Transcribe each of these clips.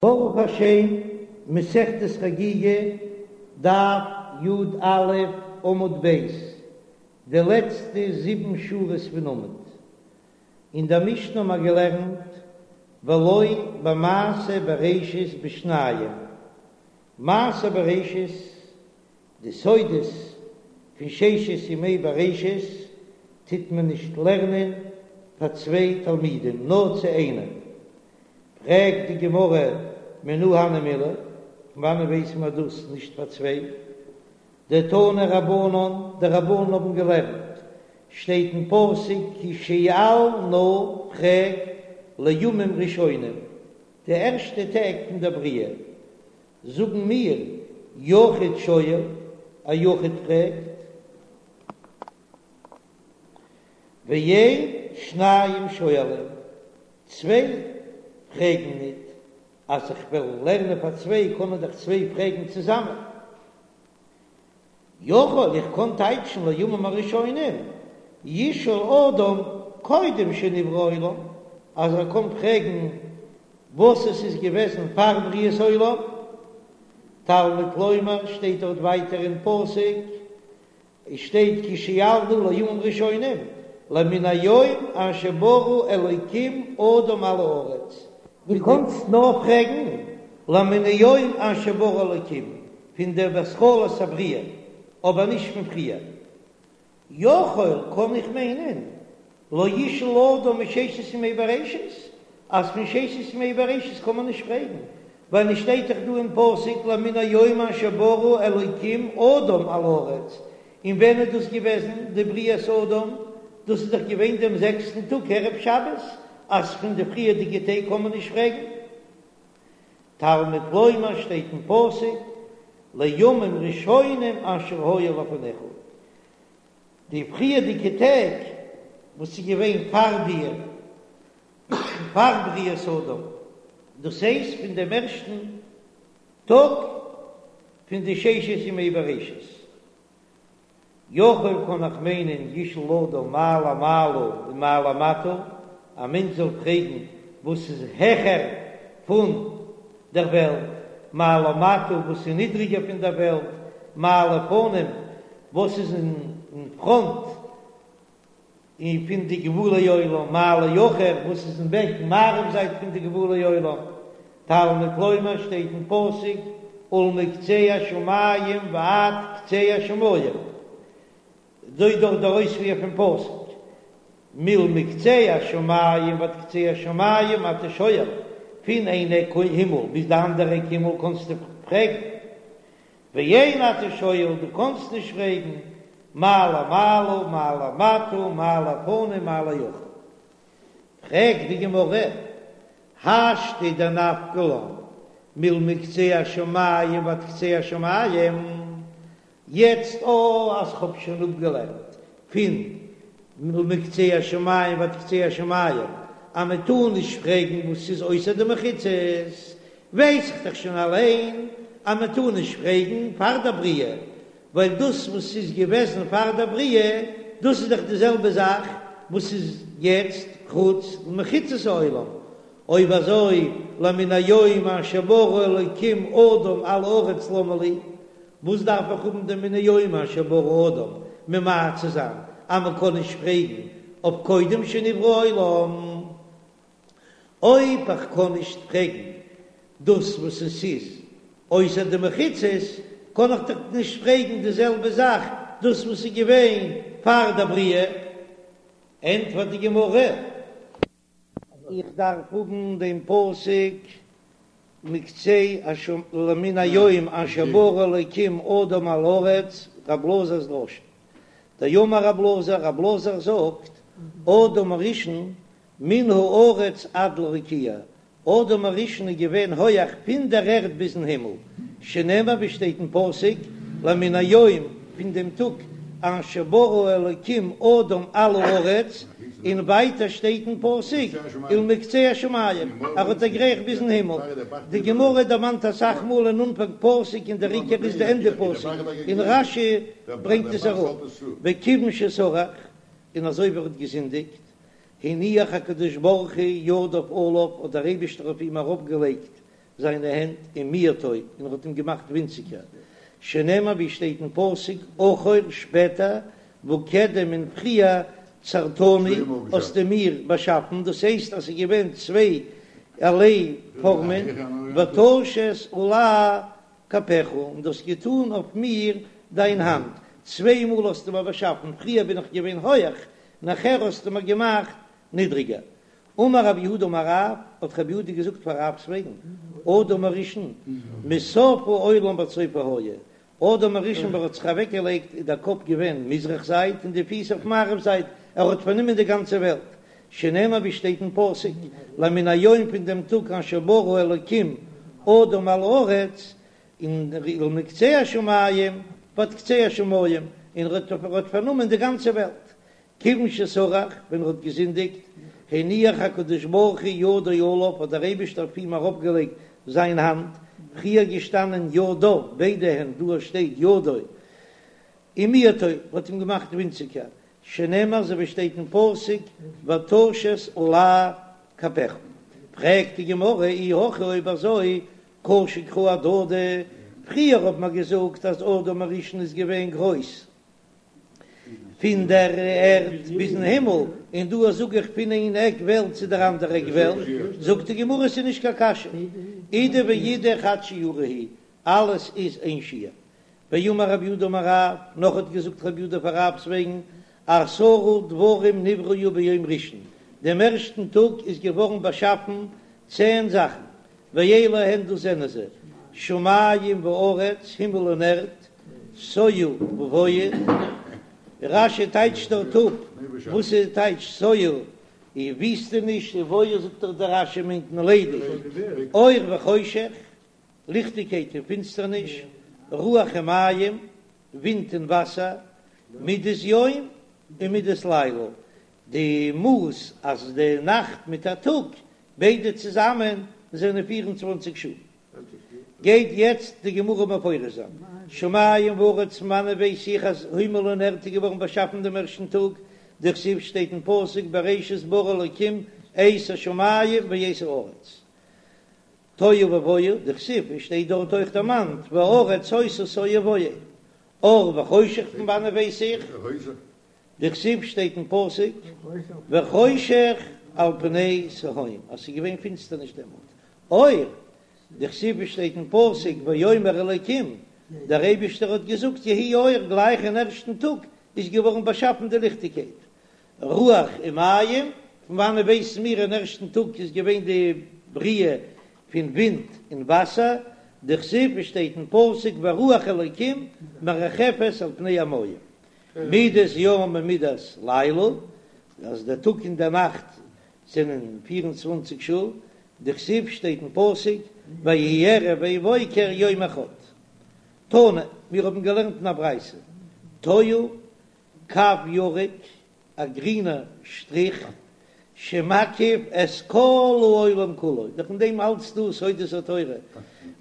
ברוך השם, מסכת חגיגה, דף י"א, עמוד ב', די לעצטע זיבן שורות פון עמוד. אין דער משנה האבן מיר געלערנט ולא במעשה בראשית בשניים, מעשה בראשית, די סודות פון ששת ימי בראשית טוט מען נישט לערנען פאר צוויי תלמידים, נאר צו איינעם. פרעגט די גמרא מנא הני מילי, פון וואנען ווייס מען דאס נישט פאר צוויי? דתנו רבנן, די רבנן האבן געלערנט, שטייט אין פסוק כי שאל נא, פרעג, לימים ראשונים, די ערשטע טעג פון דער בריאה, זאגן מיר, יחיד שואל, א יחיד פרעגט, ואין שניים שואלים, צוויי פרעגן ניט, אז איך וועל לערנען פאר צוויי קענען דאך צוויי פרעגן צוזאמען. יכול איך קען טייטשן לימים הראשונים, ישאל אדם קודם שנברא העולם, אז ער קען פרעגן וואס עס איז געוועזן פאר בריאת העולם. תלמוד לומר שטייט דארט ווייטער אין פסוק, עס שטייט כי שאל נא לימים ראשונים, למן היום אשר ברא אלוקים אדם על הארץ. דו קאנסט נאר פרעגן למן היום אשר ברא אלוקים פון דער התחלת הבריאה, אבער נישט פון פריער. יכול קען איך מיינען לא ישאל אדם מששת ימי בראשית, אז פון ששת ימי בראשית קען מען נישט פרעגן, ווייל עס שטייט דאך דא אין פסוק למן היום אשר ברא אלוקים אדם על הארץ, און ווען איז דאס געוועזן די בריאת אדם? דאס איז דאך געווען דעם זעקסטן טאג ערב שבת, אז פון די פריערדיגע טעג קען מען נישט פרעגן. תלמוד לומר שטייט אין פסוק לימים ראשונים אשר היו לפניך, די פריערדיגע טעג וואס איז געווען פאר דיר, פאר בריאת האדם, דאס הייסט פון דעם ערשטן טאג פון די ששת ימי בראשית. יכול קען איך מיינען ישאל אדם מה למעלה ומה למטה, א מענטש זאל פרעגן וואס איז העכער פון דער וועלט, מה למטה וואס איז נידריגער פון דער וועלט, מה לפנים וואס איז אין פראנט און פון די גבולי עולם, מה לאחור וואס איז אין בעק מערב זייט פון די גבולי עולם, תלמוד לומר שטייט אין פסוק ולמקצה השמים ועד קצה השמים, אזוי דאך דער אויספיר פון פסוק מלמקצה השמים ועד קצה השמים אתה שואל, פון איין עק הימל ביז די אנדערע עק הימל קענסטו פרעגן, ואין אתה שואל, דו קאנסט נישט פרעגן, מה למעלה, מה למטה, מה לפנים, מה לאחור. פרעגט די גמרא, השתא דנפקא לן מלמקצה השמים ועד קצה השמים, יעצט או אז כ'האב שוין אפגעלערנט פון מלמקצה השמים ועד קצה השמים אז מען טאר נישט פרעגן וואס איז אויסער די מחיצות, ווייס איך דאך שוין אליין אז מען טאר נישט פרעגן פאר דער בריאה, ווייל דאס וואס איז געוועזן פאר דער בריאה, דאס איז דאך די זעלבע זאך וואס איז יעצט חוץ למחיצות העולם. אויב אזוי למן היום אשר ברא אלוקים אדם על הארץ למה לי, וואס דארף איך האבן דעם מן היום אשר ברא אדם ממעט צו זיין אז מען קען נישט פרעגן אויף קודם שנברא העולם? אויב איך קען נישט פרעגן דאס וואס עס איז אויסער די מחיצות, קען איך דאך נישט פרעגן די זעלבע זאך דאס וואס איז געווען פאר דער בריאה. ענטפערט די גמרא. איך דארף האבן דעם פסוק מקצה השמים למן היום אשר ברא אלוקים אדם על הארץ, רב אלעזר'ס דרשה. דאמר רב אלעזר, רב אלעזר זאגט, אדם הראשון מן הארץ עד לרקיע, אדם הראשון איז געווען הויעך פון דער ערד ביזן הימל, שנאמר ווי שטייט אין פסוק, למן היום, פון דעם טאג אשר ברא אלוקים אדם על הארץ, און ווייטער שטייט אין פסוק, ולמקצה השמים, ער האט דערגרייכט ביזן הימל. די גמרא דערמאנט אסאך מאל אין אנפאנג פסוק און דער עיקר איז די ענדע פסוק, און רש"י ברענגט עס אראפ, וכיוון שסרח, און אזוי ווי ער האט געזינדיגט, הניח הקדוש ברוך הוא ידיו עליו, האט דער אייבישטער אויף אים אראפגעלייגט. זיינע הענט, ומיעטו, און ער האט אים געמאכט ווינציגער, שנאמר ווי שטייט אין פסוק, אחור, שפעטער, וקדם און פריער, צרתני, האסטו מיר באשאפן, דאס הייסט אז ס'איז געווען צוויי ערליי פארמען, ותשת עלי כפיך, און דו האסט געטאן אויף מיר דיין האנט, צוויי מאל האסטו מיר באשאפן, פריער בין איך געווען הויעך, נאכער האסטו מיר געמאכט נידריגער. אמר רב יהודה אמר רב, האט רב יהודה געזאגט פאר רב'ס וועגן, אדם הראשון, מסוף העולם ועד סופו היה, אדם הראשון ווען ער האט זיך אוועק געלייגט איז דער קאפ געווען מזרח זייט און די פיס אויף מערב זייט, ער האט פארנומען די גאנצע וועלט, שנאמר ווי שטייט אין פסוק, למן היום פון דעם טאג אשר ברא אלקים אדם על הארץ, און למקצה השמים ועד קצה השמים, און ער האט פארנומען די גאנצע וועלט, כיוון שסרח, ווען ער האט געזינדיגט, הניח הקדוש ברוך הוא ידו עליו, האט דער אייבערשטער אויף אים ארויפגעלייגט זיין האנט, פריער געשטאנען ידיו, ביידע הענט, דא שטייט ידו, ומיעטו, האט אים געמאכט ווינציגער, שנאמר אזוי ווי שטייט אין פסוק, ותשת עלי כפיך. פרעגט די גמרא, אי הכי אויב אזוי, קשו קראי אהדדי, פריער האט מען געזאגט אז אדם הראשון איז געווען גרויס, פון דער ערד ביזן הימל, און דא זאג איך פון איין עק וועלט צו דער אנדערע עק וועלט, זאגט די גמרא ס'איז נישט קיין קשיא, אידי ואידי חד שיעורא הוא, אלעס איז איין שיעור. ואמר רב יהודה אמר רב, נאך האט געזאגט רב יהודה פאר רב'ס וועגן, עשרה דברים נבראו ביום ראשון, דעם ערשטן טאג איז געווארן באשאפן צען זאכן, ואלו הן דאס זענען זיי, שמים וארץ, הימל און ערד, תוהו ובוהו, רש"י טייטשט דארט אפ וואס איז טייטש תוהו, איז וויסטעניש, ובוהו זאגט דאך דער רש"י מיינט מען ליידיג, אור וחושך, ליכטיגקייט און פינסטערניש, רוח ומים, ווינט און וואסער, מדת יום און מדת לילה, די מאס אז די נאכט מיט א טאג ביידע צוזאמען זענען 24 שעה. גייט יעצט די גמרא מפרש זיין, שמים וארץ פון וואנען ווייס איך אז הימל און ערד איז געווארן באשאפן דעם ערשטן טאג, דכתיב שטייט אין פסוק בראשית ברא אלקים את השמים ואת הארץ. תוהו ובוהו, דכתיב עס שטייט דארט אויך דערמאנט והארץ היתה תוהו ובוהו. אור וחושך פון וואנען ווייס איך? דכתיב שטייט אין פסוק וחושך על פני תהום אז ס'איז געווען פינסטערניש דעמאלט, אור, דכתיב שטייט אין פסוק ויאמר אלקים, דער אייבישטער האט געזאגט יהי אור, גלייך אין ערשטן טאג איז געווארן באשאפן די ליכטיגקייט, רוח ומים, פון וואנען ווייסן מיר אין ערשטן טאג איז געווען די בריאה פון ווינט און וואסער, דכתיב שטייט אין פסוק ורוח אלקים מרחפת על פני המים, מידת יום ומידת לילה, אז דער טאג און דער נאכט זענען פיר און צוואנציג שעה, דכתיב שטייט אין פסוק ויהי ערב ויהי בוקר יום אחד. תנא, מיר האבן געלערנט אין א ברייתא, תוהו, קו ירוק, א גרינער שטריך, שמקיף את כל העולם כולו, דאך אין דעם אלץ דא סודות התורה,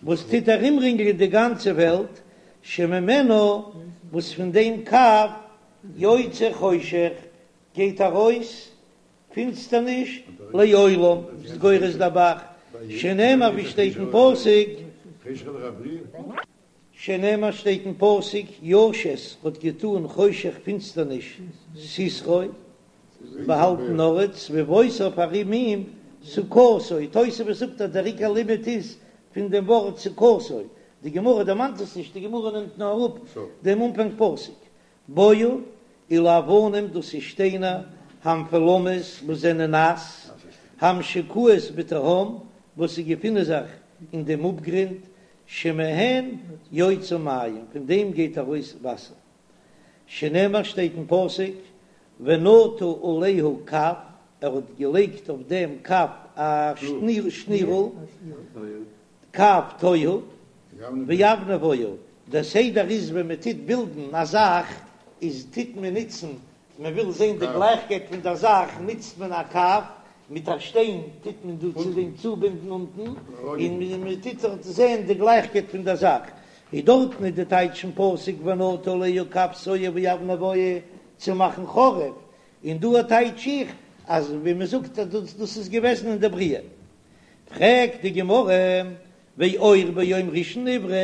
וואס טוט ארומרינגלען די גאנצע וועלט, שממנו, וואס פון דעם קו יוצא חושך, גייט ארויס פינסטערניש, לעולם, איז גורס דער ב"ח, שנאמר ווי שטייט אין פסוק, שנאמר שטייט אין פסוק, ישת האט געטאן חושך פינסטערניש סתרו, באהאלטן ארט, סביבותיו ארום אים, סוכתו, תוספות זאגט אז דער עיקר לימוד איז פון דעם ווארט סוכתו, די גמרא דערמאנט עס נישט, די גמרא נעמט נאר אראפ דעם אנפאנג פסוק, בועה, אלו אבנים דאס איז שטיינער, המפולמות וואס זענען נאס, המשוקעות בתהום וואס זיי געפינען זיך אין דעם אפגרונד, שמהן יוצא מים, פון דעם גייט ארויס וואסער. שנאמר שטייט אין פסוק, ונטה עליה קב, ער האט געלייגט אויף דעם קב א שנירל, קב תוהו, ואבני בועה, דער סדר איז ווען מען טוט בילדן א זאך איז טוט מען נוצן מען וויל זען די גלייכקייט פון דער זאך נוצט מען א קב, מיט א שטיין טוט מען דא צו דעם צובינדן אונטן, און מען טוט דארט זען די גלייכקייט פון דער זאך, איז דארטן איז די טייטש פון פסוק ונטה עליה קב תוהו ואבני בועה צו מאכן חרוב, און דא טייטש איך אז ווי מען זאגט אז דאס איז געוועזן אין די בריאה. פרעגט די גמרא. ואור ביום ראשון נברא,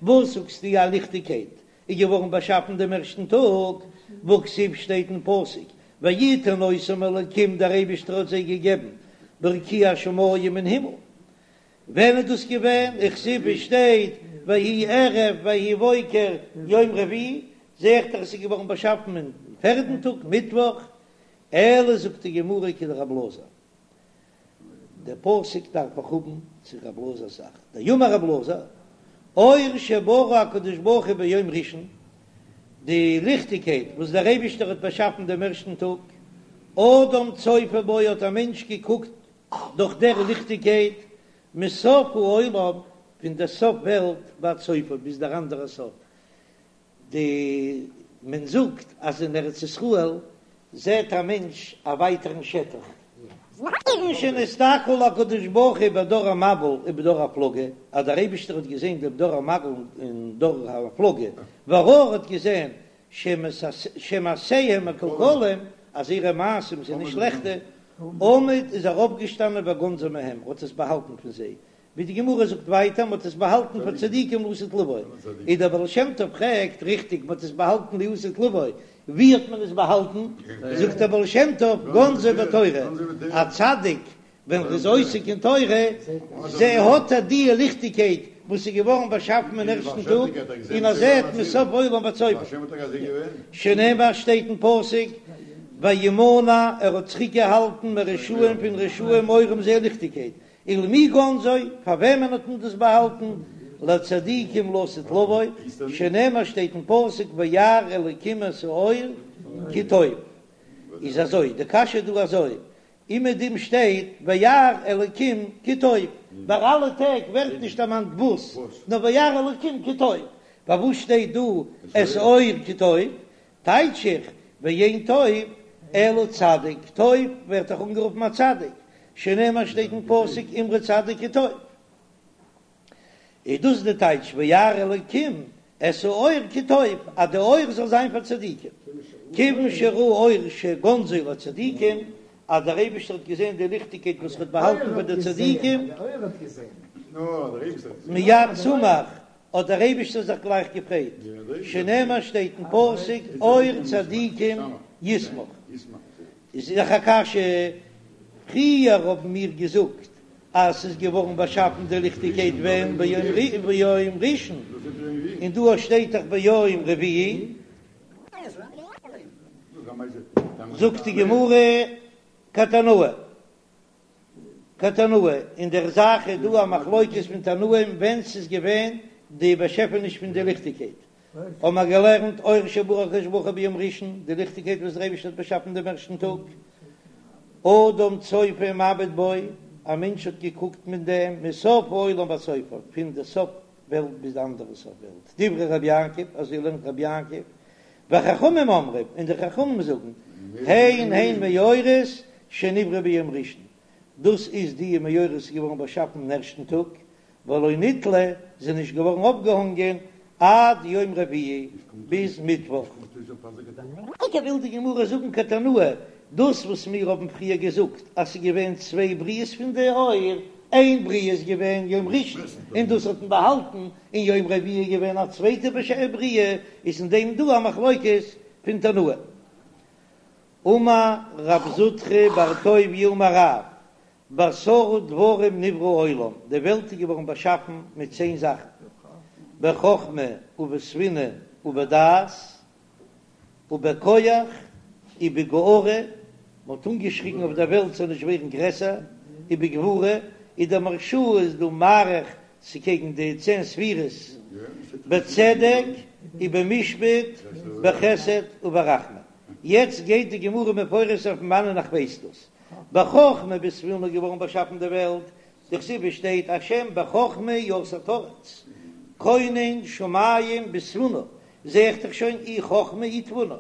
וואס זאגסטו א ליכטיגקייט איז געווארן באשאפן דעם ערשטן טאג, והכתיב שטייט אין פסוק ויתן אותם אלקים דער אייבישטער האט זיי געגעבן ברקיע השמים אין הימל, ווען איז דאס געווען? וכתיב עס שטייט ויהי ערב ויהי בוקר יום רביעי, זע איך דאך עס איז געווארן באשאפן אין פערדן טאג מיטוואך, אלא זאגט די גמרא כדרב אלעזר, דער פסוק דארף איך האבן צו רב אלעזר'ס זאך, דאמר רב אלעזר, אור שברא הקדוש ברוך הוא ביום ראשון, די ליכטיגקייט וואס דער אייבישטער האט באשאפן דעם ערשטן טאג, אדם צופה בו האט א מענטש געקוקט דורך דער ליכטיגקייט, מסוף העולם, פון דער סוף וועלט ועד סופו, ביז דער אנדערער סוף, די מען זאגט אז אין ארץ ישראל זעט א מענטש א ווייטערן שטח. כיוון שנסתכל הקדוש ברוך הוא בדור המבול ובדור הפלגה, אז דער אייבישטער האט געזען דעם דור המבול און דור הפלגה, וראה האט געזען שמעשיהם מקולקלים, אז זייערע מעשים זענען שלעכטע, עמד איז ער אויפגעשטאנען וגנזו מהם, האט עס באהאלטן פון זיי, ווי די גמרא זאגט ווייטער, מ'האט עס באהאלטן פאר צדיקים לעתיד לבוא, איז דער בעל שם טוב פרעגט, ריכטיג מ'האט עס באהאלטן לעתיד לבוא, ווי האט מען עס באהאלטן? זאגט דער בעל שם טוב, גנזו בתורה, א צדיק ווען ער איז עוסק אין תורה, זע האט ער די ליכטיגקייט וואס איז געווארן באשאפן אין ערשטן טאג, און ער זעט מסוף עולם ועד סופו, שנאמר שטייט אין פסוק, וימנע ער האט צוריק געהאלטן מרשעים פון רשעים אורם זייער ליכטיגקייט, ולמי גנזו, פאר וועמען האט מען דאס באהאלטן? לצדיקים לעתיד לבוא, שנאמר שטייט אין פסוק וירא אלקים את האור כי טוב. איז אזוי, די קשיא איז דא אזוי, אומעדום שטייט וירא אלקים כי טוב, ביי אלע טעג ווערט נישט דערמאנט וואס, נאר וירא אלקים כי טוב, פארוואס שטייט דא את האור כי טוב? טייטש איך, ואין טוב אלא צדיק, טוב ווערט דאך אנגערופן א צדיק, שנאמר שטייט אין פסוק אמרו צדיק כי טוב, איז דאס די טייטש וירא אלקים את האור כי טוב, אז די אור זאל זיין פאר צדיקים, כיוון שראה אור שגנזו לצדיקים, אז דער אייבערשטער האט געזען די ליכטיגקייט וואס ער האט באהאלטן פאר די צדיקים, מיד שמח האט דער אייבישטער זיך גלייך געפרייט, שנאמר שטייט אין פסוק אור צדיקים ישמח, איז דאך א קשיא, פריער האבן מיר געזאגט אז ס'איז געווארן באשאפן די ליכטיגקייט ווען ביום ראשון, און דא שטייט דאך ביום רביעי, זאגט די גמרא כתנאי. כתנאי, אין דער זאך איז דא א מחלוקת פון תנאים ווען ס'איז געווען די באשעפעניש פון די ליכטיגקייט, האבן מיר געלערנט אור שברא הקדוש ברוך הוא ביום ראשון, די ליכטיגקייט וואס דער אייבערשטער האט באשאפן דעם ערשטן טאג, אדם צופה ומביט בו, א מענטש האט געקוקט מיט דעם מסוף העולם ועד סופו, פון די סוף וועלט ביז די אנדערע סוף וועלט, דברי רבי יעקב, אזוי לערנט רבי יעקב, וחכמים אומרים, און די חכמים זאגן, הן הן מאורות שנבראו ביום ראשון, דאס איז די מאורות איז געווארן באשאפן אין ערשטן טאג, ולא נתלו, זענען נישט געווארן אויפגעהאנגען עד יום רביעי, ביז מיטוואך. וויל די גמרא זאגן כתנאי, דאס וואס מיר האבן פריער געזאגט אז ס'איז געווען צוויי בריאות פון די אור, איין בריאה איז געווען יום ראשון און דאס האט מען באהאלטן, און יום רביעי איז געווען א צווייטע בריאה, איז אין דעם דא א מחלוקת פון תנאים. אמר רב זוטרא בר טוביה אמר רב, בעשרה דברים נברא העולם, די וועלט איז געווארן באשאפן מיט צען זאכן, בחכמה ובתבונה ובדעת, ובכח ובגערה, מען האט אנגעשריגן אויף דער וועלט זאל נישט ווערן גרעסער, ובגבורה, איז דער מהרש"א איז דא מאריך ס'קעגן די צען ספירות, בצדק ובמשפט בחסד וברחמים. יעצט גייט די גמרא מפרש זיין פון וואנען איך ווייס דאס. בחכמה ובתבונה איז געווארן באשאפן די וועלט, דכתיב עס שטייט השם בחכמה יסד ארץ, כונן שמים בתבונה, זע איך דאך שוין אי חכמה אי תבונה,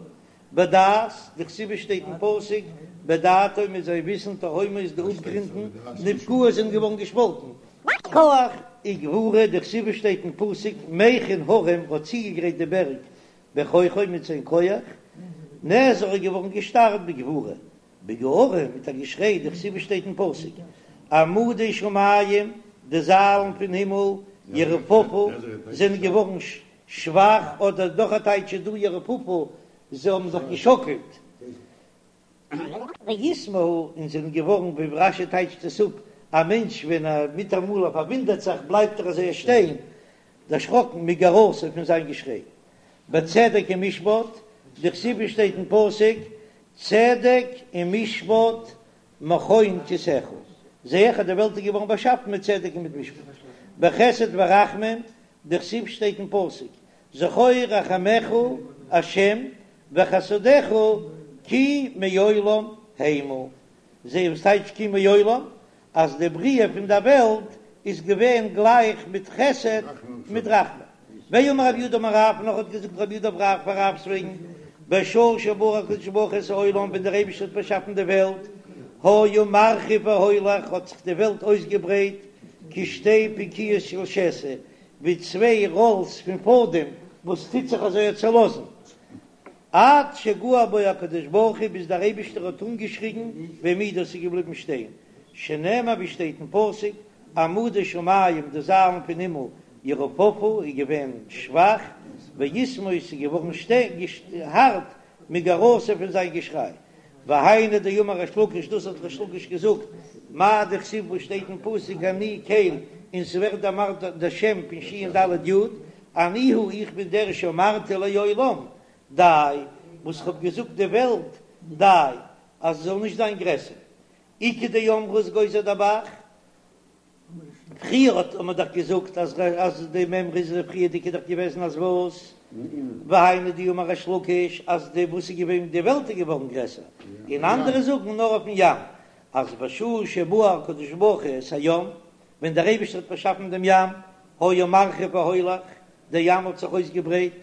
בדעת, דכתיב עס שטייט אין פסוק, בדעתו מיט זיין וויסן תהומות די אפגרונטן נבקעות זענען געווארן געשפאלטן. כח וגבורה, דכתיב עס שטייט אין פסוק, מכין הרים האט צוגעגרייט די בערג בכוחו מיט זיין כח, נאזר איז געווארן געשטארקט בגבורה, בגערה מיט א געשריי, דכתיב עס שטייט אין פסוק, עמודי שמים. די זיילן פון הימל, ירופפו, זענען געווארן שוואך, אדער נאך א טייטש איז דא ירופפו, זיי האבן זיך געשאקלט. ויתמהו, און זענען געווארן, ווי רש"י טייטשט עס אפ, א מענטש ווען ער מיטאמאל ער פארוואונדערט זיך בלייבט ער אזוי שטיין, דערשראקן מגערתו פון זיין געשריי. בצדק ומשפט, דכתיב שטייט אין פסוק, צדק ומשפט מכון כסאך, זע איך אז די וועלט איז געווארן באשאפן מיט צדק און מיט משפט. בחסד ורחמים, דכתיב שטייט אין פסוק, זכור רחמיך ה' וחסדיך כי מעולם המה, זע וואס טייטש כי מעולם, אז די בריאה פון דער וועלט איז געווען גלייך מיט חסד מיט רחמים. ואמר רב יהודה אמר רב, נאך האט געזאגט רב יהודה אמר רב פאר רב'ס וועגן, בשעה שברא הקדוש ברוך הוא את העולם ווען דער אייבערשטער האט באשאפן די וועלט, היה מרחיב והולך האט זיך די וועלט אויסגעברייט כשתי פקועות של שתי, ווי צוויי ראלס פון פאדעם וואס טוט זיך אזוי צעלאזן, עד שגער בו הקדוש ברוך הוא ביז דער אייבישטער האט אנגעשריגן והעמידו ס'איז געבליבן שטיין, שנאמר ווי שטייט אין פסוק, עמודי שמים די זיילן פון הימל ירופפו איז געווען שוואך, ויתמהו ס'איז געווארן הארט מגערתו פון זיין געשריי. והיינו דאמר ריש לקיש דאס האט ריש לקיש געזאגט, מאי דכתיב וואס שטייט אין פסוק אני קל און ס'ווערט דערמאנט דער שם פון שין ד' יוד, אני הוא איך בין דער שאמרתי לעולם די, וואס כ'האב געזאגט די וועלט די, אז עס זאל נישט זיין גרעסער. איכא דאמרי איז גוזר דער ב"ח. פריער האט מען דאך געזאגט אז אז די מימרא איז די פריערדיגע דאך געוועזן אז וואס? והיינו דאמר ריש לקיש אז די וואס איז געווען די וועלט איז געווארן גרעסער, און אנדערע זאגן נאר אויפן ים אז בשעה שברא הקדוש ברוך הוא את הים ווען דער אייבערשטער האט באשאפן דעם ים היה מרחיב והולך דער ים האט זיך אויסגעברייט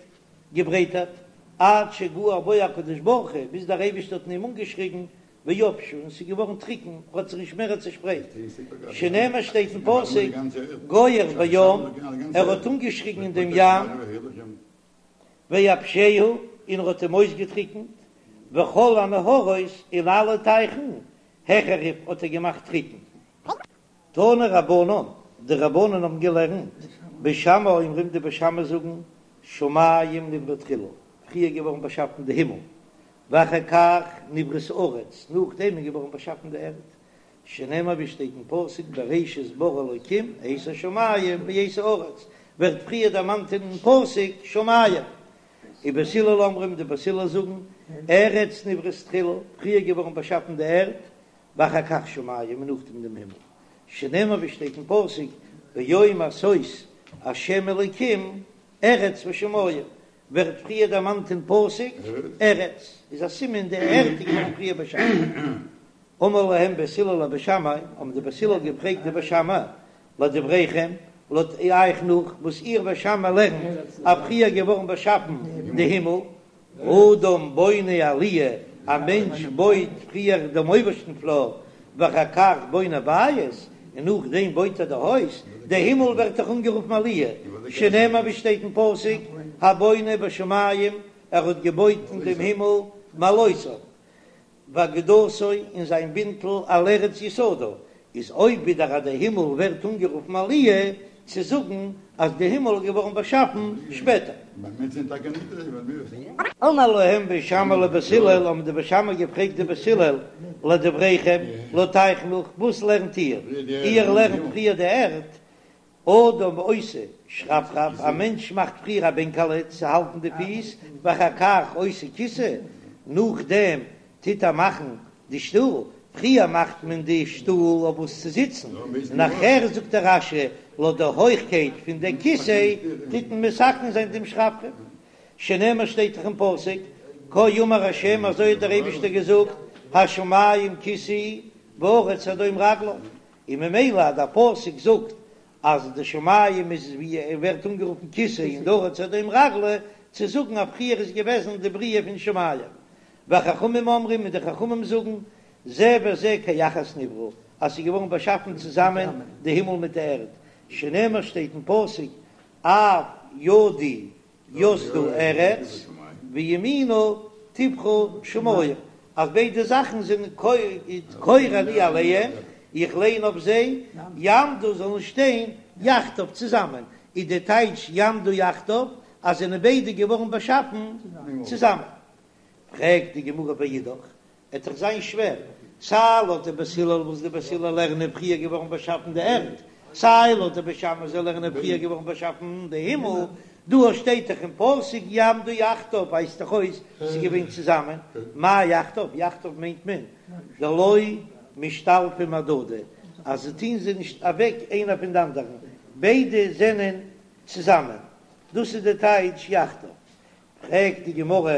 געברייטערט עד שגער בו הקדוש ברוך הוא ביז דער אייבערשטער האט אין אים אנגעשריגן ויבשו און ס'איז געווארן טריקן, האט זיך נישט מער צעשפרייט, שנאמר שטייט אין פסוק, גוער בים, ער האט אנגעשריגן אין דעם ים, ויבשהו, און ער האט אים אויסגעטריקנט, וכל הנהרות, און אלע טייכן, החריב האט ער געמאכט טריקן. תנו רבנן, די רבנן האבן געלערנט, בית שמאי אומרים די בית שמאי זאגן, שמים נבראו תחילה, פריער געווארן באשאפן די הימל, ואחר כך נבראת הארץ, נאכדעם איז געווארן באשאפן די ערד, שנאמר ווי שטייט אין פסוק בראשית ברא אלקים את השמים ואת הארץ, ווערט פריער דערמאנט אין פסוק שמים. ובית הלל אומרים, די בית הלל זאגן, ארץ נבראת תחילה, פריער געווארן באשאפן די ערד, ואחר כך שמים און נאכדעם דעם הימל, שנאמר ווי שטייט אין פסוק ביום עשות השם אלקים ארץ ושמים, ווערט פריער דערמאנט אין פסוק ארץ, איז א סימן די ערד איז געווארן פריער באשאפן. אמרו להם בית הלל לבית שמאי, האבן די בית הלל געפרעגט די בית שמאי, לדבריכם, לויט אייך נאך וואס איר בית שמאי לערנט אז פריער געווארן באשאפן די הימל, אדם בונה עליה, א מענטש בויט פריער דעם אויבערשטן פלאר, ואחר כך בונה בית, און נאכדעם בויט ער די הויז, די הימל ווערט דאך אנגערופן עליה, שנאמר ווי שטייט אין פסוק, הבונה בשמים, ער האט געבויט אין דעם הימל מעלותיו. ואגודתו און זיין בינטל על ארץ יסדה, איז אויב ווידער אז די הימל ווערט אנגערופן עליה, צו זאגן אז די הימל איז געווארן באשאפן שפעטער. אמר להם בית שמאי לבית הלל, האבן די בית שמאי געפרעגט די בית הלל, לדבריכם, לויט אייך נאך, וואס לערנט איר? איר לערנט פריער די ערד, אדם עושה שרפרף, א מענטש מאכט פריער א בענקעלע צו האלטן די פיס, ואחר כך עושה כיסא, נאכדעם טוט ער מאכן די שטול, פריער מאכט מען די שטול אויף וואס צו זיצן, נאכער זאגט דער רש"י לויט די הויכקייט פון די כיסא טוט מען מתקן זיין דעם שרפרף, שנאמר שטייט דאך אין פסוק, כה אמר ה' אזוי האט דער אייבישטער געזאגט, השמים כסאי והארץ הדום רגלי, און ממילא אז דער פסוק זאגט אז די שמים איז ווי ער ווערט אנגערופן כסא און די ארץ הדום רגלי, צו זאגן אז פריער איז געוועזן די בריאה פון שמים. וחכמים אומרים און די חכמים זאגן, זה וזה כאחת נבראו, אז ס'איז געווארן באשאפן צוזאמען די הימל מיט די ערד, שנאמר שטייט אין פסוק אף ידי יסדה ארץ וימיני טפחה שמים, אז ביידע זאכן זענען כורה אני עליהם, איך ליין אויף זיי יעמדו זאלן שטיין יחדיו צוזאמען, איז די טייטש יעמדו יחדיו אז זענען ביידע געווארן באשאפן צוזאמען. פרעגט די גמרא ואידך, עט דאך זיין שווער, סיי לויט די בית הלל וואס די בית הלל לערנען פריער געווארן באשאפן די ערד, סיי לויט די בית שמאי זיי לערנען פריער געווארן באשאפן די הימל, דא שטייט דאך אין פסוק יעמדו יחדיו ווייזט דאך אויס ס'איז געווען צוזאמען, מאי יחדיו? יחדיו מיינט מען דלא משתלפי מהדדי, אז זיי טוהן זיי נישט אוועק איינער פון די אנדערן, ביידע זענען צוזאמען, דאס איז די טייטש יחדיו. פרעגט די גמרא,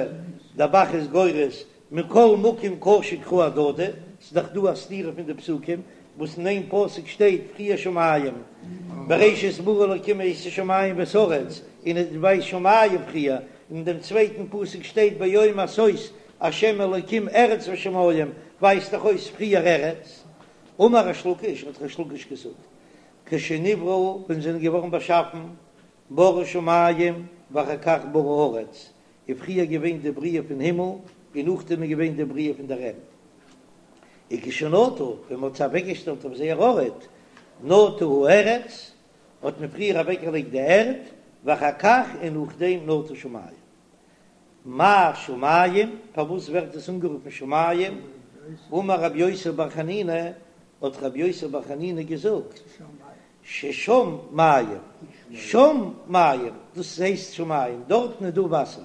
דער ב"ח איז גורס מכל מקום קשו קראי אהדדי, ס'איז דאך דא א סתירה פון די פסוקים, וואס אין איין פסוק שטייט פריער שמים, בראשית ברא אלקים את השמים ואת הארץ, און עס ווייזט שמים פריער, און אין דעם צווייטן פסוק שטייט ביום עשות השם אלקים ארץ ושמים, ווייזט דאך אויס פריער ארץ. אמר ריש לקיש, האט ריש לקיש געזאגט, כשנבראו, ווען זיי זענען געווארן באשאפן, ברא שמים ואחר כך ברא ארץ, איז פריער געווען די בריאה פון הימל און נאכדעם איז געווען די בריאה פון דער ערד. וכשנטו, ווען מען האט זיי אוועקגעשטעלט אויף זייער ארט, נטו הארץ, האט מען פריער אוועקגעלייגט די ערד, ואחר כך און נאכדעם נטו שמים. מאי שמים, פארוואס ווערט עס אנגערופן שמים? אמר רבי יוסי בר חנינא, האט רבי יוסי בר חנינא געזאגט, ששם מים, שם מים, דאס הייסט שמים, דארטן איז דא וואסער,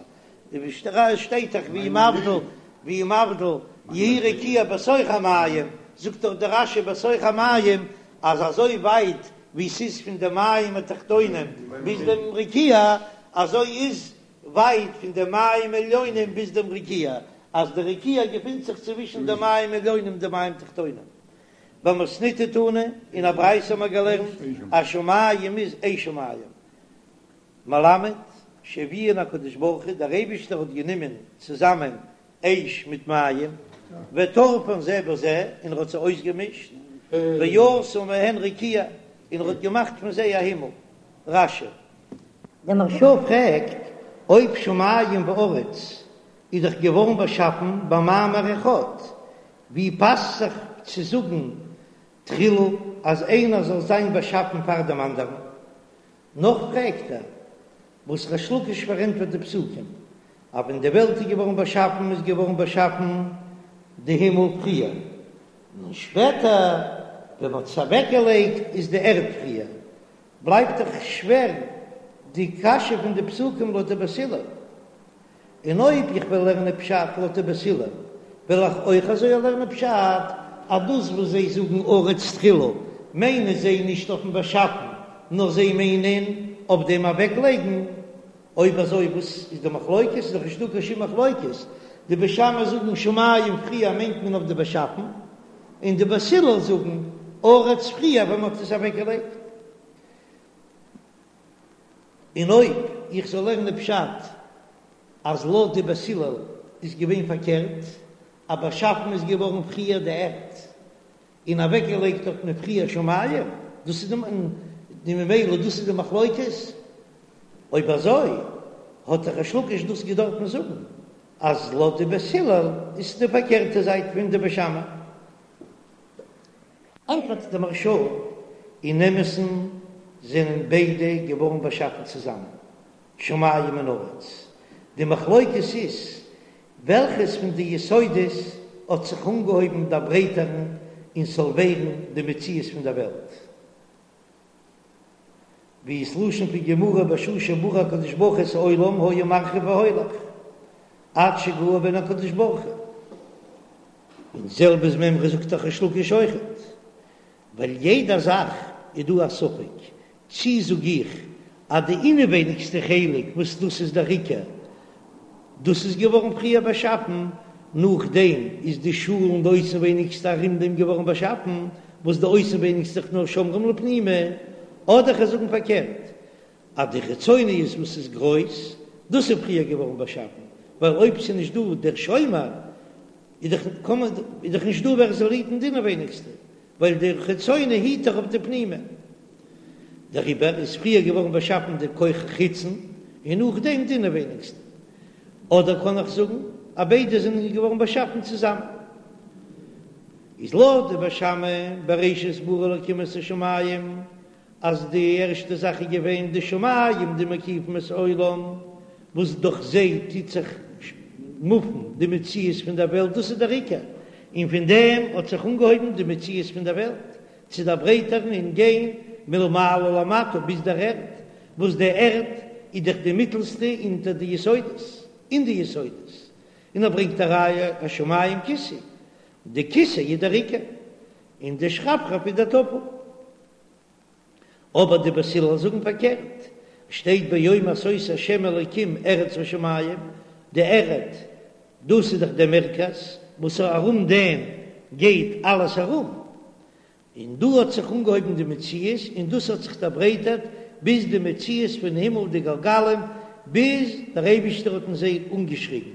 ווי שטייט דאך והוא מבדיל, והוא מבדיל, יהי רקיע בתוך המים, זאגט דאך דער רש"י בתוך המים, אז אזוי ווייט ווי ס'איז פון די מים התחתונים ביז דעם רקיע, אזוי איז ווייט פון די מים עליונים ביז דעם רקיע, אז די רקיע געפינט זיך צווישן די מים עליונים און די מים תחתונים. במתניתא תנא, אין א ברייתא האבן מיר געלערנט אז שמים איז אש ומים. מלמד שהביאן הקדוש ברוך הוא, דער אייבישטער האט גענומען צוזאמען אש מיט מים, וטרפן זה בזה, און ער האט זיי אויסגעמישט, ועשה מהן רקיע, און ער האט געמאכט פון זיי א הימל. רש"י. דער מהרש"א פרעגט, אויב שמים וארץ איז דאך געווארן באשאפן במאמר אחד, ווי פאסט זיך צו זאגן תחילה אז איינער זאל זיין באשאפן פאר דעם אנדערן? נאך פרעגט ער, וואס ריש לקיש פארענטפערט די פסוקים, אז ווען די וועלט איז געווארן באשאפן איז געווארן באשאפן די הימל פריער, און שפעטער ווען מ'האט עס אוועקגעלייגט איז די ערד פריער, בלייבט דאך שווער די קשיא פון די פסוקים לויט די בית הלל. און אויב איך וועל לערנען פשט לויט די בית הלל, וועל איך אויך אזוי לערנען פשט, אז דאס וואס זיי זאגן ארץ תחילה, מיינען זיי נישט אויפן באשאפן, נאר זיי מיינען אויף דעם אוועקלייגן. אויב אזוי וואס איז די מחלוקת? איז דאך נישטא קיין שום מחלוקת. די בית שמאי זאגן שמים פריער מיינט מען אויף די באשאפן, און די בית הלל זאגן ארץ פריער ווען מען האט עס אוועקגעלייגט. און אויב איך זאל לערנען פשט אז לויט די בית הלל איז געווען פארקערט, אז באשאפן איז געווארן פריער די ערד און אוועקגעלייגט האט מען פריער שמים, דאס איז די ממילא דאס איז די מחלוקת, אויב אזוי האט דאך ריש לקיש דאס געדארפן זאגן אז לויט די בית הלל איז די פארקערטע זייט פון די בית שמאי. ענטפערט די מהרש"א, אין אמת'ן זענען ביידע געווארן באשאפן צוזאמען, שמים און ארץ, די מחלוקת איז וועלכעס פון די יסודות האט זיך אנגעהויבן דערברייטערן און ס'זאל ווערן די מציאות פון דער וועלט. ווי איז לשון פון גמרא בשעה שברא הקדוש ברוך הוא את העולם היה מרחיב והולך עד שגער בהן הקדוש ברוך הוא, און זעלבע איז מימרא זאגט דאך ריש לקיש אויכעט, ווייל יעדע זאך איז דא א ספק, צי זאג איך אז די אינעווייניגסטע חלק וואס דאס איז דער עיקר, דאס איז געווארן פריער באשאפן, נאכדעם איז די שאל און די אויסנווייניגסטע ארום דעם געווארן באשאפן, וואס די אויסנווייניגסטע איז נאר שומרים לפנימי, אדער כ'זאל זאגן פארקערט, אז די חיצוניות וואס איז גרויס, דאס איז פריער געווארן באשאפן, ווייל אויב ס'איז נישט דא דער שומר, איז דאך איז דאך נישט דא ווער עס זאל היטן די אינעווייניגסטע, ווייל דער חיצוני היט דאך אויף די פנימי. דעריבער איז פריער געווארן באשאפן די כח חיצון און נאכדעם די אינעווייניגסטע. אדער קען איך זאגן אז ביידע זענען געווארן באשאפן צוזאמען. איז לויט די בית שמאי בראשית ברא אלקים את השמים, אז די ערשטע זאך איז געווען די שמים די מקיפים את העולם, וואס דורך זיי טוט זיך מופן די מציאות פון דער וועלט, דאס איז דער עיקר, און פון דעם האט זיך אנגעהויבן די מציאות פון דער וועלט צו דערברייטערן און גיין מלמעלה למטה ביז דער ערד, וואס די ערד איז דאך די מיטלסטע אונטער די יסודות, אין די יסודות, און ער ברענגט א ראיה השמים כסאי, די כסא איז דער עיקר, און די שרפרף איז דער טפל. אבער די בית הלל זאגן פארקערט, שטייט ביום עשות השם אלוקים ארץ ושמים, די ערד דאס איז דאך דער מרכז וואס ארום דעם גייט אלעס ארום, און דא האט זיך אנגעהויבן די מציאות און דאס האט זיך דערברייטערט ביז די מציאות פון הימל די גלגלים ביז דער אייבישטער האט אין זיי אנגעשריגן,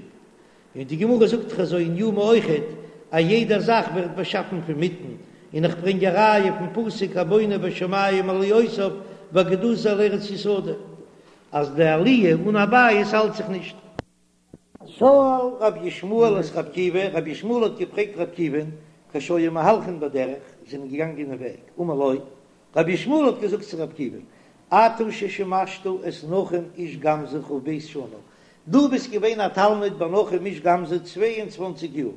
און די גמרא זאגט דאך אזוי אין יומא אויכעט אז יעדע זאך ווערט באשאפן פון מיטן, און איך ברענג א ראיה פון פסוק הבונה בשמים עליותיו ואגודתו על ארץ יסדה אז די עליה אן א בית האלט זיך נישט. שאל רבי ישמעאל את רבי עקיבא, רבי ישמעאל האט געפרעגט רבי עקיבא'ן, כשהיו מהלכין בדרך, זענען געגאנגען אין וועג, אמר לו, רבי ישמעאל האט געזאגט צו רבי עקיבא'ן, אתה ששימשת את נחום איש גם זו כ"ב שנה, דו ביסט געווען א תלמיד ביי נחום איש גם זו 22 יאר,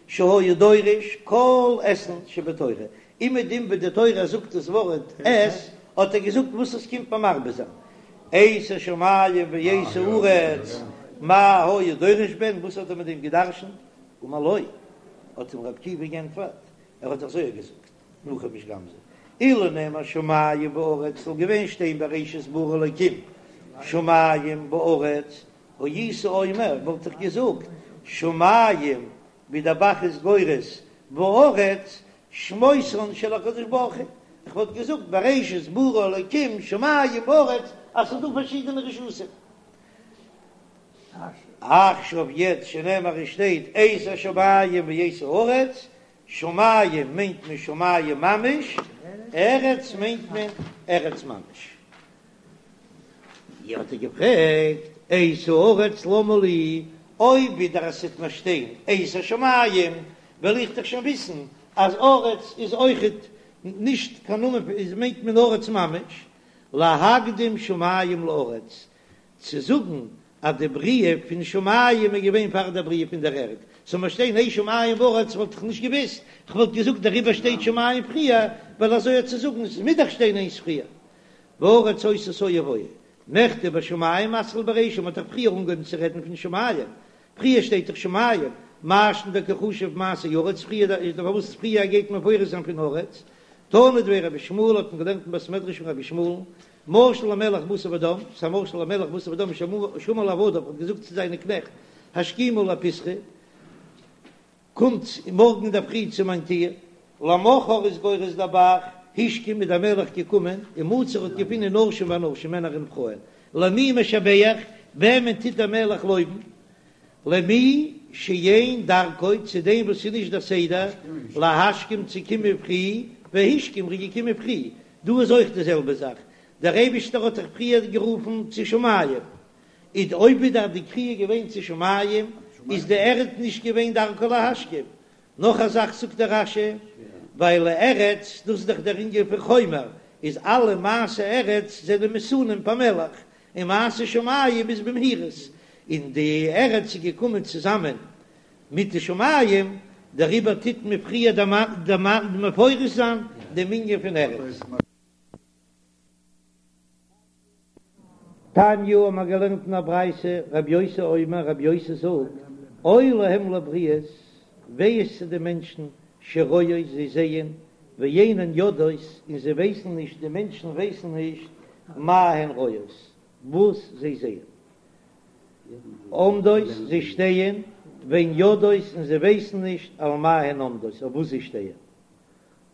שהיה דורש כל אתין שבתורה, אומעדום ווי די תורה זאגט דאס ווארט את, האט ער געזאגט וואס עס קומט מרבה זיין, את השמים ואת הארץ, מה היה דורש בהן, וואס האט ער מיט דעם געדרשנט? אמר לו, האט אים רבי עקיבא גענטפערט, ער האט אזוי געזאגט, נחום איש גם זו, אילו נאמר שמים וארץ, זאל געווען שטיין בראשית ברא אלקים שמים וארץ, הייתי אומר, וואלט איך געזאגט, שמים, ווי דער ב"ח איז גורס, וארץ, שמותן של הקדוש ברוך הוא, איך וואלט געזאגט בראשית ברא אלקים שמים וארץ, אז ס'איז דא פארשידענע רשות'ן. עכשיו יעצט שנאמר עס שטייט את השמים ואת הארץ, שמים מיינט מען שמים ממש, ארץ מיינט מען ארץ ממש. האט ער געפרעגט, את הארץ למה לי, אויב ווידער עס וועט נאר שטיין את השמים, וועל איך דאך שוין וויסן אז ארץ איז אויכעט נישט קיין נאמען, איז מיינט מען ארץ ממש, להקדים שמים לארץ, צו זאגן אז די בריאה פון שמים איז געווען פאר דער בריאה פון דער ערד, זאל מיר שטיין את שמים וארץ וואלט איך נישט געוואוסט, איך וואלט געזאגט דעריבער שטייט שמים פריער, ווייל אזוי האט צו זאגן עס מוז דאך שטיין איינס פריער. והארץ היתה תוהו ובוהו, מכדי בשמים מתחיל ברישא, מ'האט דאך פריער אנגעהויבן צו רעדן פון שמים, פריער שטייט דאך שמים, מאי שנא דקא חשיב מעשה ארץ, פריער איז דאך פארוואס פריער גייט מען מפרש זיין פון ארץ, תנא דבי רבי ישמעאל האט מען געלערנט אין בית מדרש פון רבי ישמעאל, משל למלך בשר ודם, ס'איז א משל למלך בשר ודם שאמר לעבדיו האט געזאגט צו זיינע קנעכט, השכימו לפתחי, קומט מארגן אינדערפרי צו מיין טיר, למחר איז גורס דער ב"ח, השכים איז דער מלך געקומען, ומצא האט געפונען נשים ואנשים מענער און פרויען, למי משבח, וועמען טוט דער מלך לויבן? למי שאין דרכו, צו דעם וואס איז נישט דער סדר, להשכים צו קומען פרי, והשכים ער איז געקומען פרי, דא איז אויך די זעלבע זאך, דער אייבישטער האט דאך פריער גערופן צו שמים, איז אויב איז דאך די קריאה געווען צו שמים, איז די ערד נישט געווען דרכו להשכים. נאך א זאך זאגט דער רש"י, ווייל ארץ, דאס איז דאך דער ענין פון חומר, איז אלע מעשה ארץ זענען מתונים פאמעליך, און מעשה שמים איז במהירות, און די ארץ איז געקומען צוזאמען מיט די שמים, דעריבער טוט מען פריער מפרש זיין דעם ענין פון ארץ. תניא האבן מיר געלערנט אין א ברייתא, רבי יוסי אומר, רבי יוסי זאגט, אוי להם לבריות, וויי איז צו די מענטשן, שרואות, זיי זעען, ואינן יודעות, און זיי ווייסן נישט, די מענטשן ווייסן נישט, מה הן רואות, וואס זיי זעען. עומדות, זיי שטייען, ואין יודעות, און זיי ווייסן נישט, על מה הן עומדות, אויף וואס זיי שטייען.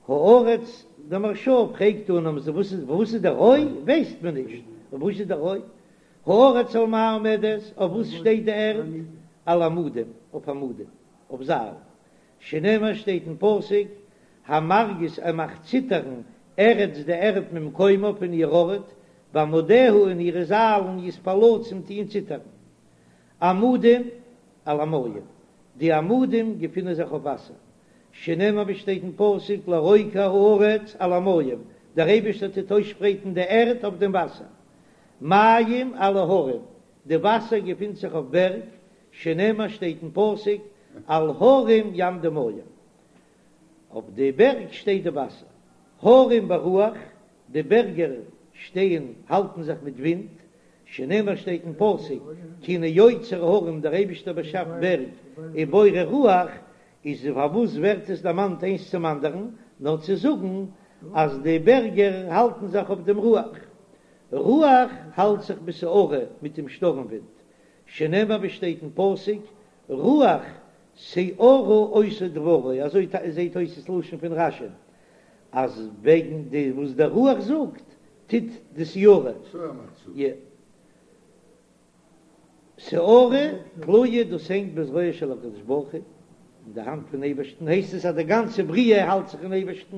הארץ, דער מהרש"א פרעגט אן אז וואס איז וואס איז דער אוי ווייסט מען נישט, וואס איז דער אוי? הארץ על מה עומדת, אויף וואס שטייט די ערד? על עמודים, אויף עמודים, אויף זיילן, שנאמר שטייט אין פסוק, המרגיז ער מאכט ציטערן ארץ די ערד ממקומה פון איר ארט, ועמודיה און אירע זיילן יתפלצון טוען ציטערן. עמודים על המים, די עמודים געפינען זיך אויף וואסער. שנאמר ווי שטייט אין פסוק לרוקע הארץ על המים, דער אייבערשטער טוט אויסשפרייטן די ערד אויף דעם וואסער. מים על ההרים, די וואסער געפינט זיך אויף בערג, שנאמר שטייט אין פסוק על הרים יעמדו מים, אויף די בערג שטייט די וואסער. הרים ברוח, די בערגער שטייען האלטן זיך מיט ווינט, שנאמר שטייט אין פסוק כי הנה יוצר הרים דער אייבישטער באשאפט בערג ובורא רוח, איז פארוואס ווערט עס דערמאנט איינס צום אנדערן, נאר צו זאגן אז די בערגער האלטן זיך אויף דעם רוח, רוח האלט זיך בסערה מיט דעם שטורם ווינט, שנאמר ווי שטייט אין פסוק רוח סערה עושה דברו, אזוי זעט אויס דאס לשון פון רש"י, אז וועגן די וואס דער רוח זאגט טוט די סערה, סערה תלויה דאס הענגט בזרועו של הקדוש ברוך הוא, אין די האנט פון אייבערשטן, הייסט עס אז די גאנצע בריאה האלט זיך אין אייבערשטן,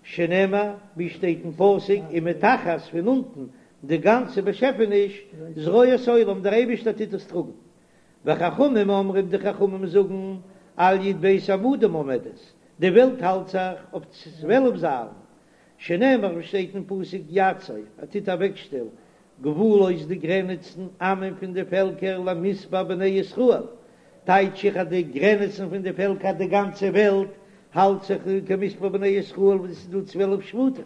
שנאמר ווי שטייט אין פסוק ומתחת פון אונטן די גאנצע באשעפעניש זרועות עולם דער אייבערשטער טוט עס טראגן, וחכמים אומרים די חכמים זאגן על י"ב עמודים עומדת, די וועלט האלט זיך אויף 12 זיילן, שנאמר ווי שטייט אין פסוק יצב ער טוט אוועקשטעלן גבולות די גרעניצן עמים פון די פעלקער למספר בני ישראל, טייטש איך אז די גרעניצן פון די פעלקער די גאנצע וועלט האלט זיך כמספר בני ישראל וואס עס איז דא 12 שבטים,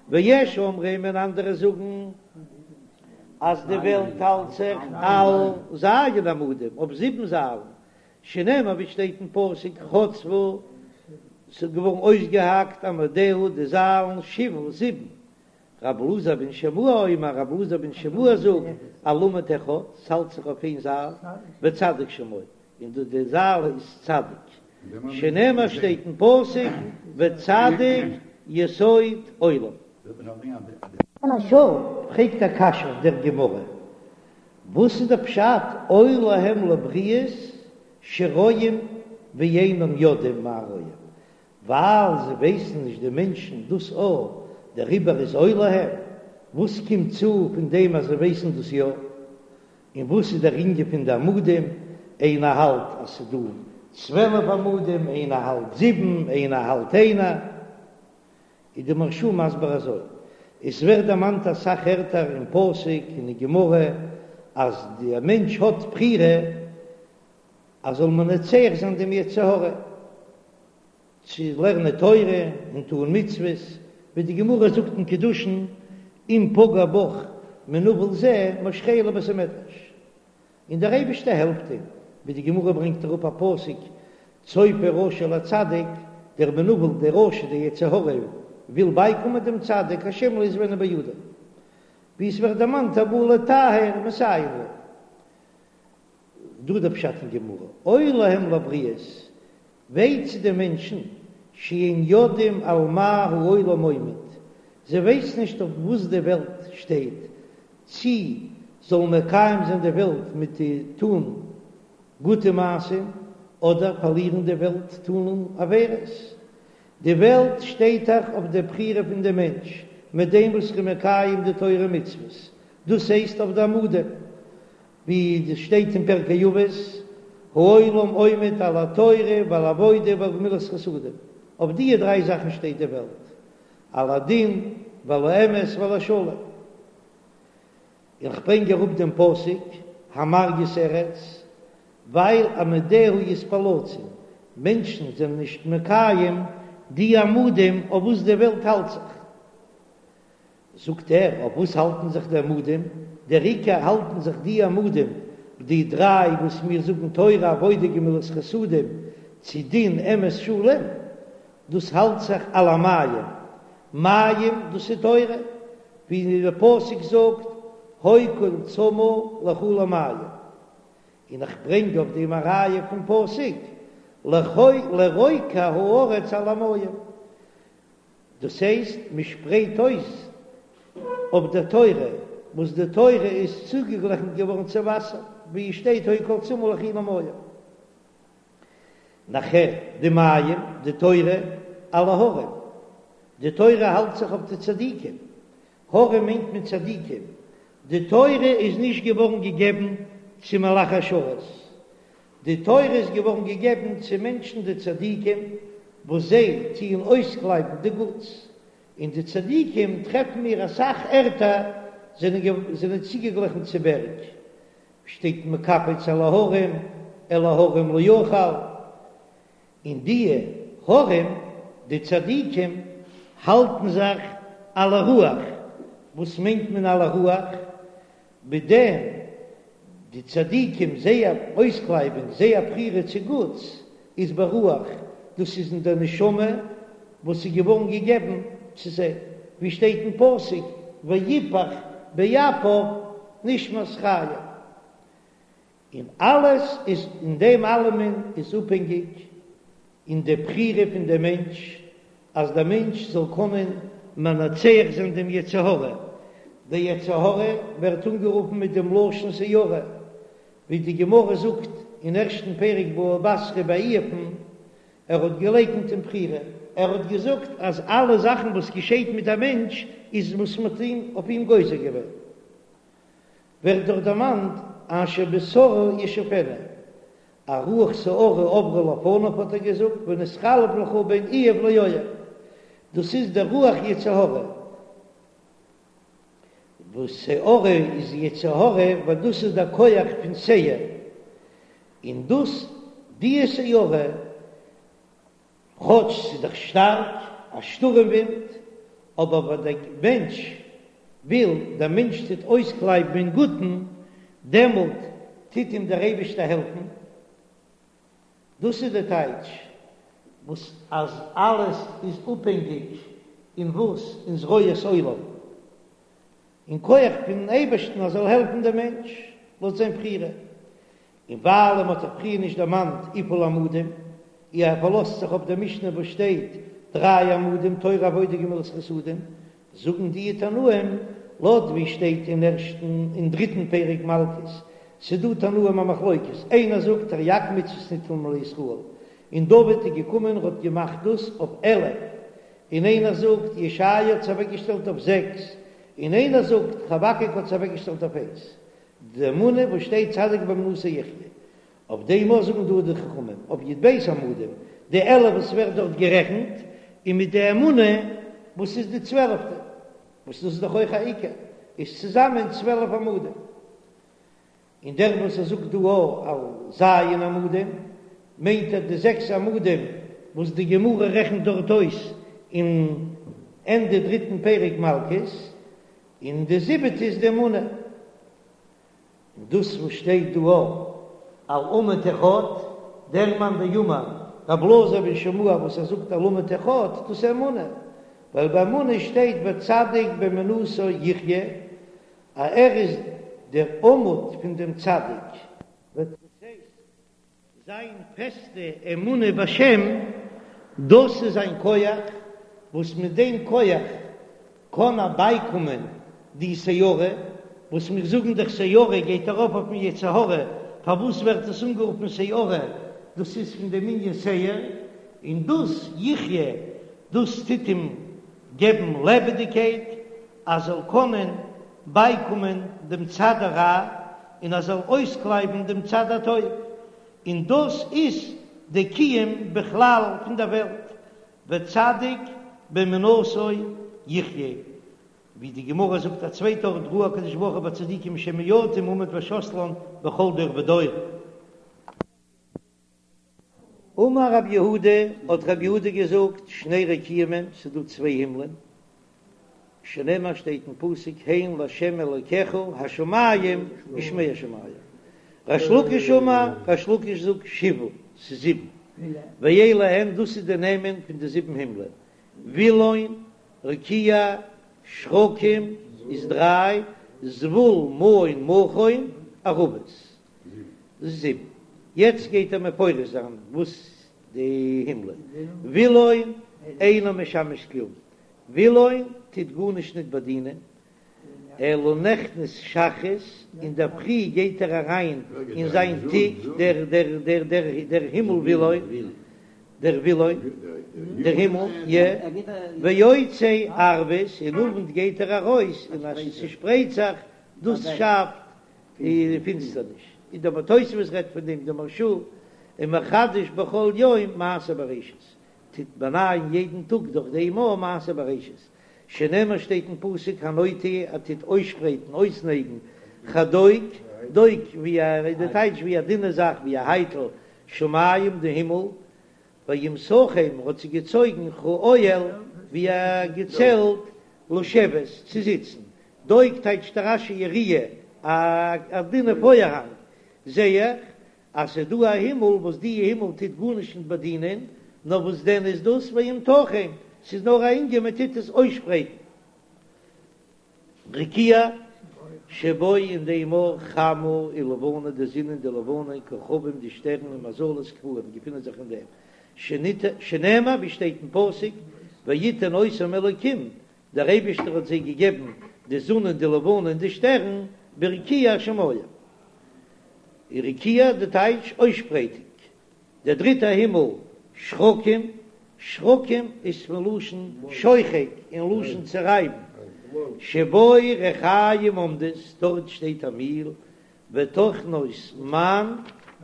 ויש אומרים און אנדערע זאגן אז די וועלט האלט זיך על ז' עמודים אויף זיבן זיילן, שנאמר ווי שטייט אין פסוק חצבו ס'איז געווארן אויסגעהאקט עמודיה די זיילן שבעה זיבן, רב אלעזר בן שמוע אומר רב אלעזר בן שמוע זאגט על עמוד אחד ס'האלט זיך אויף איין זייל וצדיק שמו און דאס די זייל איז צדיק שנאמר שטייט אין פסוק וצדיק יסוד עולם. מהרש"א פרעגט א קשיא אויף דער גמרא, וואס איז דער פשט אוי להם לבריות שרואים ואינם יודעים מה רואים, ווייל זיי ווייסן נישט די מענטשן דאס א, דעריבער איז אוי להם, וואס קומט צו פון דעם אז זיי ווייסן דאס יא? און וואס איז דער ענין פון די עמודים, איינער האלט אז ס'איז דא 12 עמודים, איינער האלט זיבן, איינער האלט איינער, איז די מהרש"א מסביר אזוי, עס ווערט דערמאנט אסאך ערטער אין פסוק און אין גמרא אז די מענטש האט בחירה אז זאל מנצח זיין דעם יצר הרע צו לערנען תורה און טון מצוות, ווי די גמרא זאגט אין קידושין, אם פגע בך מנוול זה משכהו לבית המדרש, און דער אייבערשטער העלפט אים, ווי די גמרא ברענגט אראפ א פסוק, צופה רשע לצדיק, דער מנוול, דער רשע, דער יצר הרע, וויל בייקומען דעם צדיק, השם לא יעזבנו בידו, ווי עס ווערט דערמאנט הבא לטהר מסייעין לו. דא דער פשט אין גמרא, אוי להם לבריות, וויי צו די מענטשן, שאין יודעים על מה העולם עומד, זיי ווייסן נישט אויף וואס די וועלט שטייט, צי זאלן מקיים זיין די וועלט מיט די טון גוטע מעשים, אדער פארלירן די וועלט טון עבירות. די וועלט שטייט דאך אויף די בחירה פון די מענטש, מיט דעם וואס ער איז מקיים די תורה ומצוות, דאס הייסט אויף די עמודים, ווי עס שטייט אין פרקי אבות, העולם עומד על התורה ועל העבודה ועל גמילות חסדים, אויף דיע דריי זאכן שטייט די וועלט, על הדין ועל האמת ועל השלום. איך ברענג אראפ דעם פסוק, המרגיז ארץ, ווייל עמודיה יתפלצון, מענטשן זענען נישט מקיים די עמודים אויף וואס די וועלט האלט זיך. זאגט ער, אויף וואס האלטן זיך די עמודים? דער עיקר האלטן זיך די עמודים, די דריי וואס מיר זאגן תורה עבודה גמילות חסדים, צו דין אמת שלום, דאס האלט זיך על המים, מים דאס איז תורה, ווי דער פסוק זאגט, הוי כל צמא לכו למים, און איך ברענג אויף דעם א ראיה פון פסוק, לרוקע הארץ על המים. דאס הייסט מען שפרייט אויס אויף דער תורה, וואס די תורה איז צוגעגליכנט געווארן צו וואסער, ווי עס שטייט הוי כל צמא לכו למים. נאכער די מים, די תורה, על ההרים, די תורה האלט זיך אויף די צדיקים, הרים מיינט מען צדיקים, די תורה איז נישט געווארן געגעבן צו מלאכי השרת, די תורה איז געווארן געגעבן צו מענטשן די צדיקים. וואס זיי טוען אויסקלייבן די גוטס, און די צדיקים טרעפן מיר אסאך ערטער זענען צוגעגליכן צו בערג, שטייט מקפץ על ההרים, אל ההרים לא אוכל, און די הרים, די צדיקים, האלטן זיך על הרוח, וואס מיינט מען על הרוח? מיט דעם די צדיקים זייער אויסקלייבונג, זייער בחירה צו גוטס, איז ברוח, דאס איז אין דער נשמה וואס איז געווארן געגעבן צו זיי, ווי שטייט אין פסוק ויפח באפיו נשמת חיים, און אלעס איז אין דעם אלעמען איז אפהענגיק אין די בחירה פון דעם מענטש, אז דער מענטש זאל קענען מנצח זיין דעם יצר הרע, דער יצר הרע ווערט אנגערופן מיט דעם לשון סערה, ווי די גמרא זאגט אין ערשטן פרק בבא בתרא ביי איוב'ן, ער האט געלייקנט אין בחירה, ער האט געזאגט אז אלע זאכן וואס געשעט מיט א מענטש איז וואס מען האט אויף אים גוזר געווען. ווערט דאך דערמאנט אשר בשערה ישופנו, א רוח סערה עברה לפניו האט ער געזאגט ונתחלף לך בין איוב לאויב, דאס איז דער רוח יצר הרע, וואס סערה איז יצר הרע ווייל דאס איז דער כח פון שעיר, און דאס די סערה כאטש ס'איז דאך שטארק א שטורעם ווינט, אבער ווען דער מענטש וויל, דער מענטש טוט אויסקלייבן אין גוטן, דעמאלט טוט אים דער אייבערשטער העלפן. דאס איז די טייטש וואס אז אלעס איז אפהענגיק אין וואס? אין זרועות עולם, אין כח פונעם אייבערשטן אז זאל העלפן דעם מענטש לויט זיין בחירה. און ווייל מען האט זיך פריער נישט דערמאנט וויפיל עמודים, אי ער פארלאזט זיך אויף דער משנה וואס שטייט דריי עמודים תורה עבודה גמילות חסדים, זאגן די תנאים לויט ווי שטייט אין ערשטן און דריטן פרק מלקות, ס'דא תנאים א מחלוקת, איינער זאגט תרי"ג מצוות ניתנו לישראל, און דוד איז געקומען און האט געמאכט דאס אויף 11, און איינער זאגט ישעיה האט עס אוועקגעשטעלט אויף זעקס, און איינער זאגט חבקוק האט עס אוועקגעשטעלט אויף איינס, די אמונה וואס שטייט צדיק באמונתו יחיה, אויף דעם אויך זאגן דא די חכמים אויף י"ב עמודים, די 11 וואס ווערט דארט גערעכנט, און מיט די אמונה וואס איז די צוועלפטע, וואס דאס איז דאך אויך א עיקר, איז צוזאמען 12 עמודים. און דער וואס ער זאגט דא על ז' עמודים, מיינט ער די זעקס עמודים וואס די גמרא רעכנט דארט אויס אין ענדע דריטן פרק מלקות, און די זיבעטע איז די אמונה. און דאס וואס שטייט דא על עמוד אחד, דער מאן דאמר רבי אלעזר בן שמוע וואס ער זאגט על עמוד אחד, דאס איז אמונה, ווייל ביי אמונה שטייט וצדיק באמונתו יחיה, אז ער איז דער עמוד פון דעם צדיק. דאס הייסט, זיין פעסטע אמונה בשם, דאס איז זיין כח, וואס מיט דעם כח קען ער בייקומען די סערה, וואס מיר זאגן דאך סערה גייט ארויף אויפן יצר הרע, פארוואס ווערט עס אנגערופן סערה, דאס איז פון דעם ענין שעיר, און דאס יחיה, דאס טוט אים געבן לעבעדיגקייט, אז זאל קענען בייקומען דעם צד הרע און ער זאל אויסקלייבן דעם צד הטוב, און דאס איז די קיום בכלל פון דער וועלט, וצדיק באמונתו יחיה, ווי די גמרא זאגט א צווייטע ארט ראה הקדוש ברוך הוא בצדיקים שמועטים עמוד ושתלן בכל דור ודור. אמר רב יהודה, האט רב יהודה געזאגט, שני רקיעים הן, ס'איז דא צוויי הימלען, שנאמר שטייט אין פסוק הן לה' אלקיך השמים ושמי השמים, ריש לקיש אמר, ריש לקיש זאגט שבעה, ס'איז זיבן, ואלו הן, דאס איז די נעמען פון די זיבן הימלען, וילון, רקיע, שחקים איז דריי, זבול, מעון, מכון, ערבות. זיבן. יעצט גייט ער מפרש זיין וואס די הימלען. וילון אינו משמש כלום, וילון טוט גארנישט ניט באדינען, אלא נכנס שחרית, אינדערפרי גייט ער אריין אין זיין תיק, דער דער דער דער דער הימל וילון, דער וילון, דער הימל, יע, ויוצא ערבית, אין אוונט גייט ער ארויס און אז ס'שפרייט זיך, דאס שאפט די פינסטערניש, און דער תוספות רעדט פון דעם, דער מהרש"א, ומחדש בכל יום מעשה בראשית. טוט באנייען יעדן טאג דורך דעם אור מעשה בראשית, שנאמר שטייט אין פסוק הנוטה ער טוט אויסשפרייטן אויסנייגן כדוק, דוק ווי א איז די טייטש ווי א דינע זאך ווי א הייטל, שמים די הימל, וימתחם האט זי געצויגן כאוהל ווי א געצעלט לשבת צו זיצן, דוק טייטשט רש"י יריעה א דינע פארהאנג, זע איך אז ס'איז דא א הימל וואס די הימל טוט גארנישט נישט באדינען, נאר וואס דען איז דאס וימתחם, ס'איז נאר א ענין מען טוט עס אויסשפרייטן. רקיע שבו אין דעם אור חמה ולבנה די זון און די לבנה כוכבים די שטערן און מזלות קבועים געפינען זיך אין דעם, שנאמר ווי שטייט אין פסוק ויתן אותם אלוקים דער אייבישטער האט זיי געגעבן די זון און די לבנה און די שטערן ברקיע השמים. רקיע די טייטש אויסשפרייטונג. דער דריטער הימל שחקים, שחקים איז פון לשון שוחק און לשון צערייבן, שבו רחיים עומדות, דארט שטייט א מיל, וטוחנות מן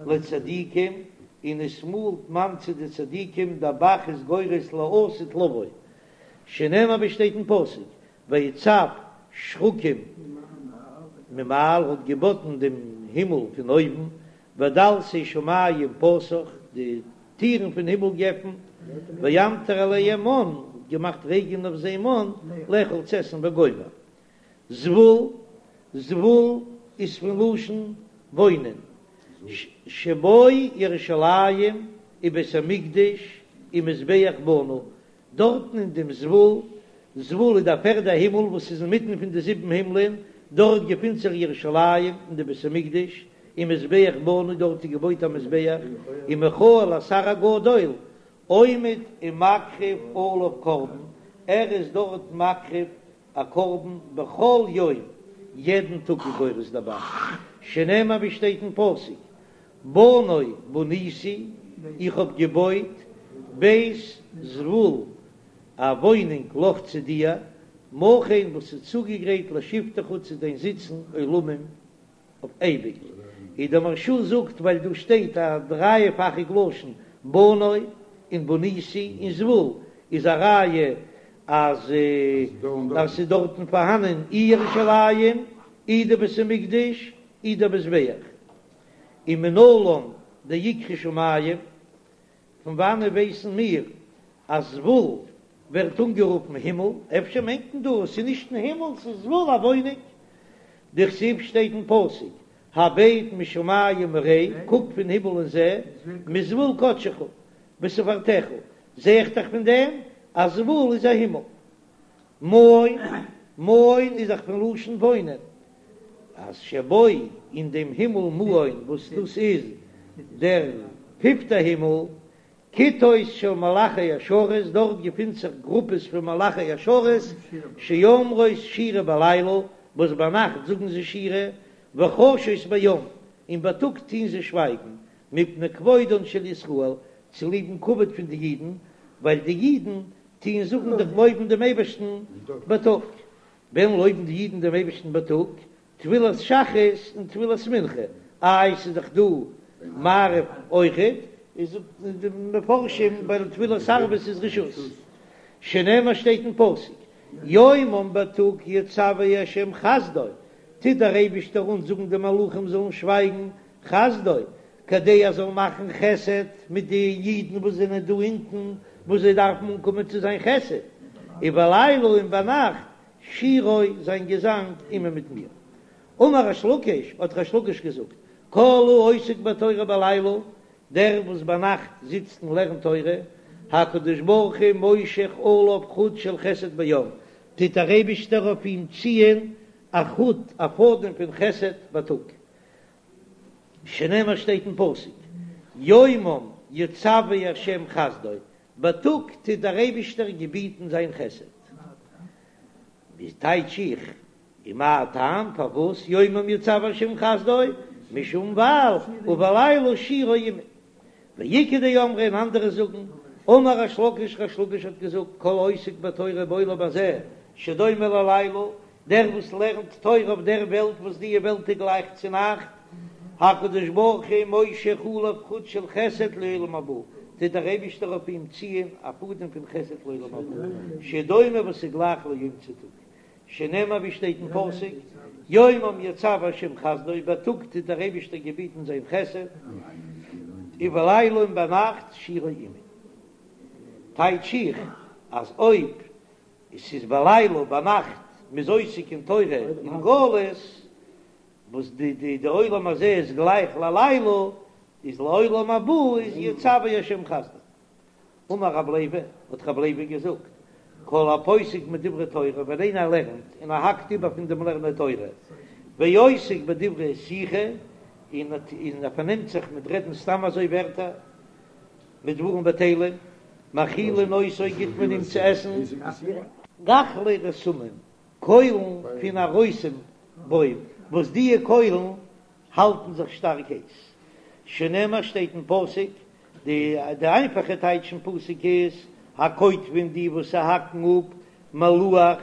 לצדיקים, און עס מאלט מן צו די צדיקים, דער ב"ח איז גורס לעתיד לבוא, שנאמר ווי שטייט אין פסוק, ויצו שחקים ממעל האט געבאטן דעם הימל פון אויבן, ודלתי שמים פתח, די טירן פון הימל געפנט, וימטר עליהם מן, האט געמאכט רעגענען אויף זיי מן, לאכול צו עסן וגומר. זבול, זבול איז פון לשון וואוינען, שבו ירושלים ובית המקדש ומזבח בנוי, דארטן אין דעם זבול, זבול איז דער פערדער הימל וואס איז אינמיטן פון די זיבן הימלען, דארט געפינט זיך ירושלים און די בית המקדש, ומזבח בנוי, דארט איז געבויט א מזבח, ומיכאל השר הגדול עומד ומקריב עליו קרבן, ער איז דארט מקריב א קרבן בכל יום, יעדן טאג איז גורס דער ב"ח, שנאמר ווי שטייט אין פסוק, בנה בניתי, איך האב געבויט בית זבול, א וואוינונג לך צו דיר, מכון וואס איז צוגעגרייט לשבתך צו דיין זיצן עולמים אויף אייביג. און דער מהרש"א זאגט ווייל דא שטייט א דרייפאכיג לשון בנה און בניתי און זבול איז א ראיה אז ס'איז דארטן פארהאנען אי ירושלים אי די בית המקדש אי דער מזבח. ומנלן דאיקרי שמים, פון וואנען ווייסן מיר אז זבול ווערט אנגערופן הימל? אפשר מיינט מען דא עס איז נישט אין הימל, ס'איז זבול א וואוינונג. דכתיב שטייט אין פסוק הבט משמים וראה, קוק פון הימל און זע, מזבול קדשך ותפארתך, זע איך דאך פון דעם אז זבול איז א הימל. מעון, מעון איז דאך פון לשון וואוינען, אז שבו אין דעם הימל מעון וואס דאס איז דער פיפטער הימל, כיתות של מלאכי השרת, דארט געפינט זיך גרופעס פון מלאכי השרת, שאומרות שירה בלילה, וואס ביינאכט זאגן זיי שירה, וחשות ביום, און בייטאג טוהן זיי שווייגן, מפני כבודן של ישראל, צוליבן כבוד פון די אידן, ווייל די אידן טוען זאגן דאך לויבן דעם אייבערשטן בייטאג. ווען לויבן די אידן דעם אייבערשטן בייטאג? תפילת שחרית און תפילת מנחה, איי ס'איז דאך דא מעריב אויכעט, איז זאגט די מפרשים ווייל תפילת ערבית איז רשות, שנאמר שטייט אין פסוק, יומם בייטאג יצוה ה' חסדו, טוט דער אייבערשטער אנזאגן די מלאכים זאלן שווייגן, חסדו, כדי ער זאל מאכן חסד מיט די אידן וואס זענען דא אונטן, וואס זיי דארפן אנקומען צו זיין חסד, ובלילה און ביינאכט שירו זיין געזאנג עמי מיט מיר. אמר ריש לקיש, האט ריש לקיש געזאגט, כל העוסק בתורה בלילה, דער וואס ביינאכט זיצט און לערנט תורה, הקדוש ברוך הוא מושך עליו חוט של חסד ביום, טוט דער אייבישטער אויף אים ציען א חוט, א פאדעם פון חסד בייטאג. שנאמר שטייט אין פסוק, יומם יצוה ה' חסדו, בייטאג טוט דער אייבישטער געביטן זיין חסד. ווי טייטש איך, ומה טעם פארוואס יומם יצוה ה' חסדו, משום ווייל ובלילה שירו עמי. ואיכא דאמרי און אנדערע זאגן, אמר ריש לקיש ריש לקיש האט געזאגט כל העוסק בתורה בעולם הזה שדומה ללילה, דער וואס לערנט תורה אויף דער וועלט וואס די וועלט איז גלייך צו נאכט, הקדוש ברוך הוא מושך עליו חוט של חסד לעולם הבא, טוט. טוט דער אייבישטער אויף אים ציען א פאדעם פון חסד לעולם הבא, שדומה וואס איז גלייך ליום צו טאג, שנאמר ווי שטייט אין פסוק, יומם יצוה השם חסדו, בייטאג טוט דער אייבישטער געביטן זיין חסד, ובלילה און ביינאכט שירו עמו. טייטש איך אז אויב עס איז בלילה ביינאכט מ'איז עוסק אין תורה אין גלות, וואס די די די עולם הזה איז גלייך ללילה, איז לעולם הבא איז יצוה השם חסדו. אמר רב לוי, האט רב לוי געזאגט, כל הפוסק מדברי תורה, ווען איינער לערנט און ער האקט איבער פון דעם לערנען תורה, ועוסק בדברי שיחה, און ער פארנעמט זיך מיט רעדן סתם אזוי ווערטער, מיט דברים בטלים, מאכילין אותו גיט מען אים צו עסן. גחלי רתמים, קוילן פון א רותם בוים, וואס דיע קוילן האלטן זיך שטארק הייס. שנאמר שטייט אין פסוק, די די איינפאכע טייטש אין פסוק איז, הקוטפין די וואס ס'האקן אפ מלוח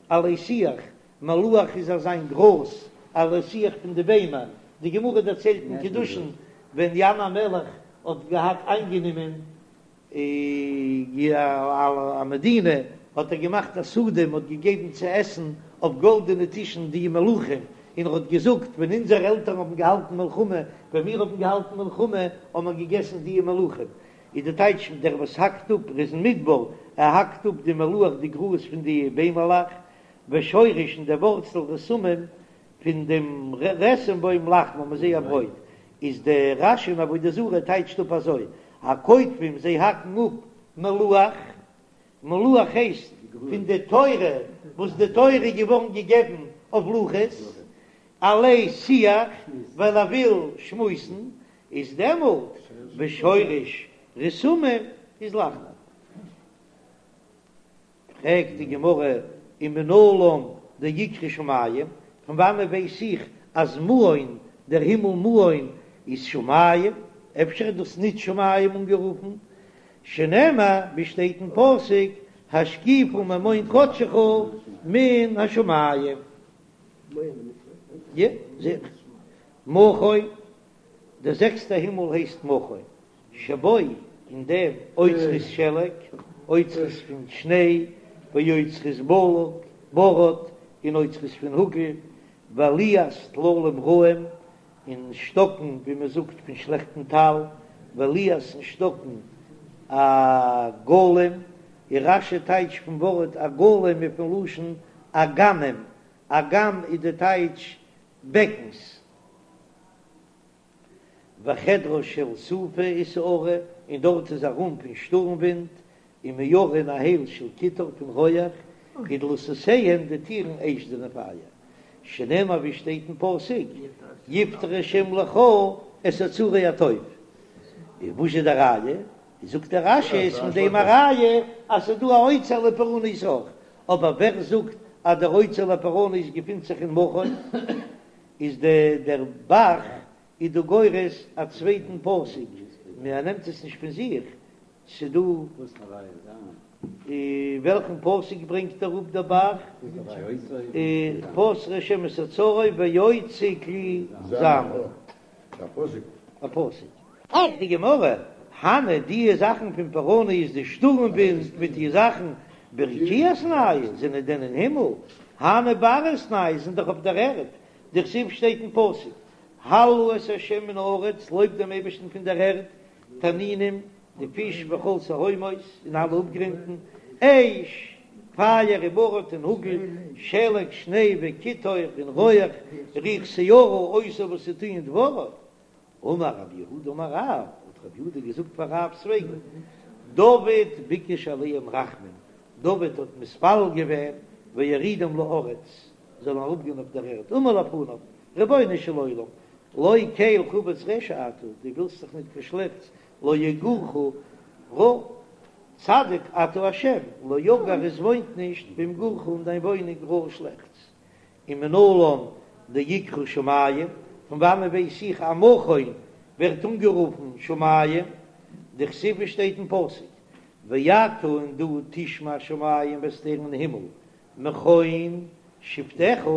עלי שיח, מלוח איז אזיין גראז עלי שיח פון די ביימער, די גמרא דערציילט אין קידושין ווען ינאי המלך האט געהאט איינגענומען א מדינה האט ער געמאכט א סעודה, מען האט געגעבן צו עסן אויף גאלדענע טישן די מלוחים, און ער האט געזאגט, ווען אונזערע עלטערן האבן געהאלטן מלחמה, ווען מיר האבן געהאלטן מלחמה, האבן מיר געגעסן די מלוחים. איז די טייטש, דער וואס האקט אפ, ער איז אין מדבר, ער האקט אפ די מלוח די גראז פון די ביימעלעך, ושורש און דער ווארצל רתמים פון דעם רתם בוים לחמם איז זייער ברויט, איז דער רש"י אין עבודה זרה טייטשט אפ אזוי, הקוטפים זיי האקן אפ מלוח, מלוח הייסט פון די תורה וואס די תורה איז געווארן געגעבן אויף לוחות, עלי שיח ווייל ער וויל שמועסן, איז דעמאלט ושורש רתמים איז לחמם. פרעגט די גמרא ומנלן דאיקרי שמים, פון וואנען ווייס איך אז מעון, דער הימל מעון, איז שמים? אפשר איז דאס ניט שמים אנגערופן? שנאמר, ווי שטייט אין פסוק, השקיפה ממעון קדשך מן השמים. יא, זיכער. מכון, דער זעקסטער הימל הייסט מכון. שבו אין דעם אוצרות שלג, אוצרות פון שניי, ואוצרות בלק, ברד, און אוצרות פון האגל, ועליית טללים רעים, און שטאקן, ווי מען זאגט, פון שלעכטן טל, ועליית און שטאקן עגלים, און רש"י טייטשט פון ווארט עגלים איז פון לשון אגמים, אגם איז די טייטש בעקנס. וחדרה של סופה וסערה, און דארט איז א רום פון שטורם ווינט, ומערה און א הייל של קיטור פון רויעך, ודלתותיהן די טירן אש זענען פייער, שנאמר ווי שטייט אין פסוק, יפתח השם לך את אוצרי הטוב. און וואס איז די ראיה? זאגט דער רש"י איז פון דעם א ראיה אז ס'איז דא א אוצר לפורענות אויך, אבער ווער זאגט אז דער אוצר לפורענות געפינט זיך אין מכון? איז די דער ב"ח איז דא גורס א צווייטן פסוק, מען נעמט עס נישט פון זיך, ס'דא וועלכן פסוק ברענגט אראפ דער ב"ח? פתח השם את אוצרו ויוצא כלי זעמו. א פסוק. פרעגט די גמרא, הני די זאכן פון פורענות די שטורם ווינט מיט די זאכן ברקיעא איתנהו זענען דען אין הימל? הני בארעא איתנהו זענען דאך אויף דער ערד, דכתיב שטייט אין פסוק, הללו את ה' מן הארץ, לויבט דעם אייבערשטן פון דער ערד, תנינים, די פיש וכל תהומות, און אלע אפגרונטן, אש, פייער וברד און האגל, שלג, שניי וקיטור און רויעך, רוח סערה עושה וואס זיי טוען דברו. אמר רב יהודה אמר רב, האט רב יהודה געזאגט פאר רב'ס וועגן, דוד ביקש עליהם רחמים, דוד האט מתפלל געווען ויורידום לארץ, זאלן אראפגיין אויף דער ערד, אמר לפניו, רבונו של עולם, לא קל חפץ רשע אתה, דו ווילסט דאך ניט קיין שלעכטס, לא יגורך רע, צדיק אתה השם, לא יגור עס וואוינט נישט במגורך אין דיין וואוינונג רע שלעכטס. ומנלן דאיקרי שמים, פון וואנען ווייס איך אז מכון ווערט אנגערופן שמים? דכתיב שטייט אין פסוק, ואתה און דו תשמע שמים וועסט הערן אין הימל, מכון שבתך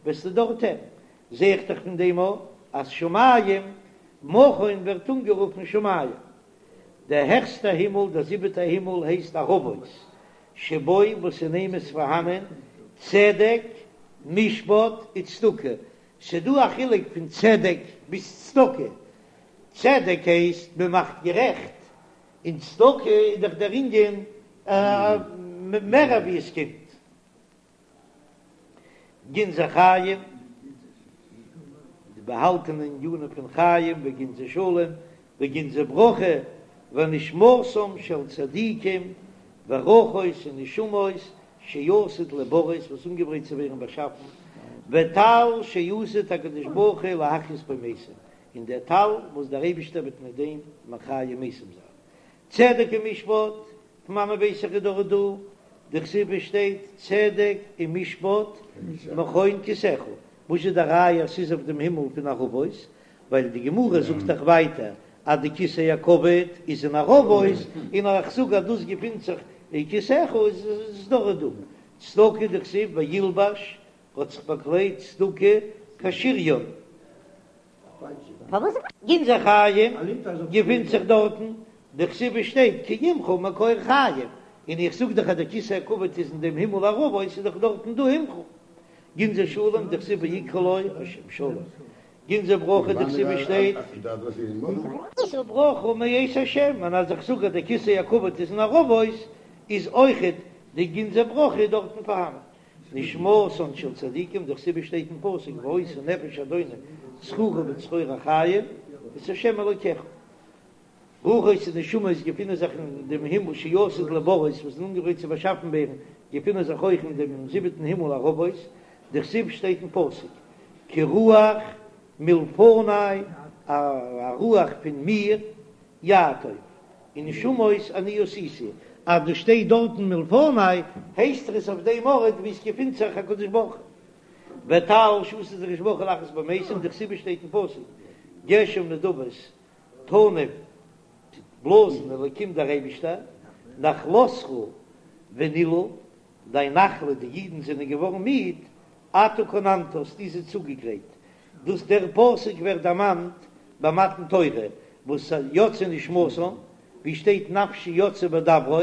וועסטו דארט הערן, זע איך דאך פון דעם אויך אז שמים, מכון ווערט אנגערופן שמים. דער העכסטער הימל, דער זיבעטער הימל הייסט ערבות, שבו וואס אין אים איז פארהאנען צדק, משפט וצדקה, ס'דא א חילוק פון צדק ביז צדקה, צדק הייסט מען מאכט גערעכט, און צדקה איז דאך דער ענין מער ווי עס קומט. גנזי חיים, די באהאלטענע ענינים פון חיים, וגנזי שלום, וגנזי ברכה, ונשמתם של צדיקים, ורוחות און נשמות שעתיד להבראות וואס אנגעברייט צו ווערן באשאפן, וטל שעתיד הקדוש ברוך הוא להחיות בו מתים, און דער טל וואס דער אייבישטער וועט מיט דעם מחיה מתים זיין. צדק ומשפט, פון וואנען ווייס איך איז דאך דא, דכתיב עס שטייט צדק ומשפט מכון כסאך, וואס איז די ראיה אז ס'איז אויף דעם הימל פון ערבות, ווייל די גמרא זאגט דאך ווייטער אז די כסא הכבוד איז אין ערבות, און איך זאג אז דאס געפינט זיך אין כסאך איז עס דאך דא. צדקה דכתיב וילבש האט זיך באקליידט צדקה כשריון. גנזי חיים געפינט זיך דארטן, דכתיב עס שטייט כי עמך מקור חיים, און איך זאג דאך אז דער כסא הכבוד איז אין דעם הימל ערבות איז דאך דארטן דא עמך. גנזי שלום דכתיב ויקרא לו השם שלום. גנזי ברכה דכתיב עס שטייט. שא ברכה מאת השם, און אז איך זאג אז דער כסא הכבוד איז אין ערבות איז אויכעט די גנזי ברכה דארטן פארהאנען. נשמתן של צדיקים, דכתיב עס שטייט אין פסוק והיתה נפש אדוני צרורה בצרור החיים את השם אלוקיך. רוחות און נשמות געפינען זיך אין דעם הימל שעתיד להבראות וואס איז אנגעגרייט צו באשאפן ווערן, געפינען זיך אויך אין דעם זיבעטן הימל ערבות, דכתיב שטייט אין פסוק כי רוח מלפני א רוח פון מיר יעטוף און נשמות אני עשיתי, אז דא שטייט דארטן מלפני הייסט עס אויף דעם ארט ווי עס געפינט זיך הקדוש ברוך הוא. וטל שעתיד הקדוש ברוך הוא להחיות בו מתים דכתיב שטייט אין פסוק גשם נדבות תנף טוט בלאזן אלקים דער אייבישטער נחלתך ונלאו דיין נחלה די אידן זענען געווארן מיד אתה כוננת האסטו זיי צוגעגרייט דאס דער פסוק ווערט דערמאנט ביי מתן תורה וואס יצאה נשמתם ווי שטייט נפשי יצאה בדברו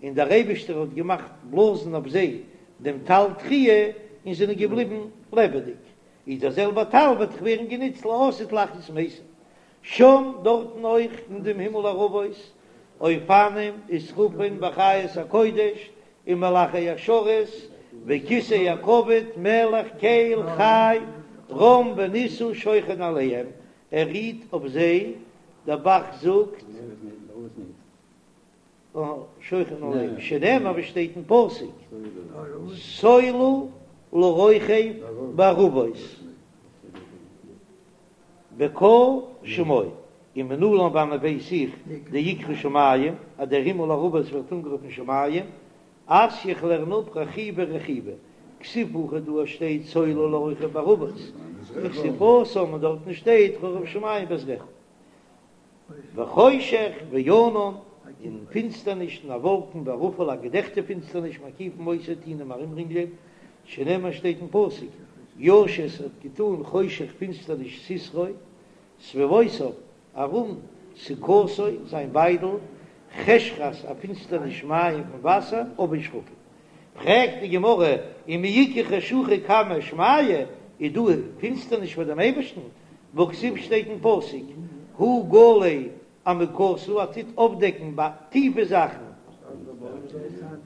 און דער אייבישטער האט געמאכט בלאזן אויף זיי דעם טל תחי' און זענען געבליבן לעבעדיג איז דער זעלבער טל וועט דאך ווערן גענוצט לעתיד להחיות מתים שם דארטן אויך אין דעם הימל ערבות אופנים ושרפים וחיות הקודש ומלאכי השרת וכסא הכבוד מלך קל חי רם ונישא שוכן עליהם ער רוהט אויף זיי, דער ב"ח זאגט שוכן עליהם שנאמר ווי שטייט אין פסוק סולו לרוכב בערבות. בקה שמו, ומנלן וואנען ווייס איך דאיקרי שמים אז דער הימל ערבות ווערט אנגערופן שמים, אתיא איך לערן אפ רחיבי רחיבי, כתיב הכא דא שטייט סולו לרוכב בערבות, וכתיב התם און דארטן שטייט רחב שמים בעזרך. וחושך וענן, און פינסטערניש און א וואלקן וערפל א געדעכטע פינסטערניש מקיפים אותו טוען אים ארומרינגלען, שנאמר שטייט אין פסוק, ישת האט געטאן חושך פינסטערניש סתרו, סביבותיו, ארום סוכתו, זיין ביידל, חשכת א פינסטערניש מים פון וואסער, עבי שחקים. פרעגט די גמרא, ומי איכא חשוכא קמיה שמיא, איז דא פינסטערניש פאר דעם אייבערשטן? והכתיב שטייט אין פסוק, הוא גלה עמוקתא, ער טוט אויפדעקן טיפע זאכן,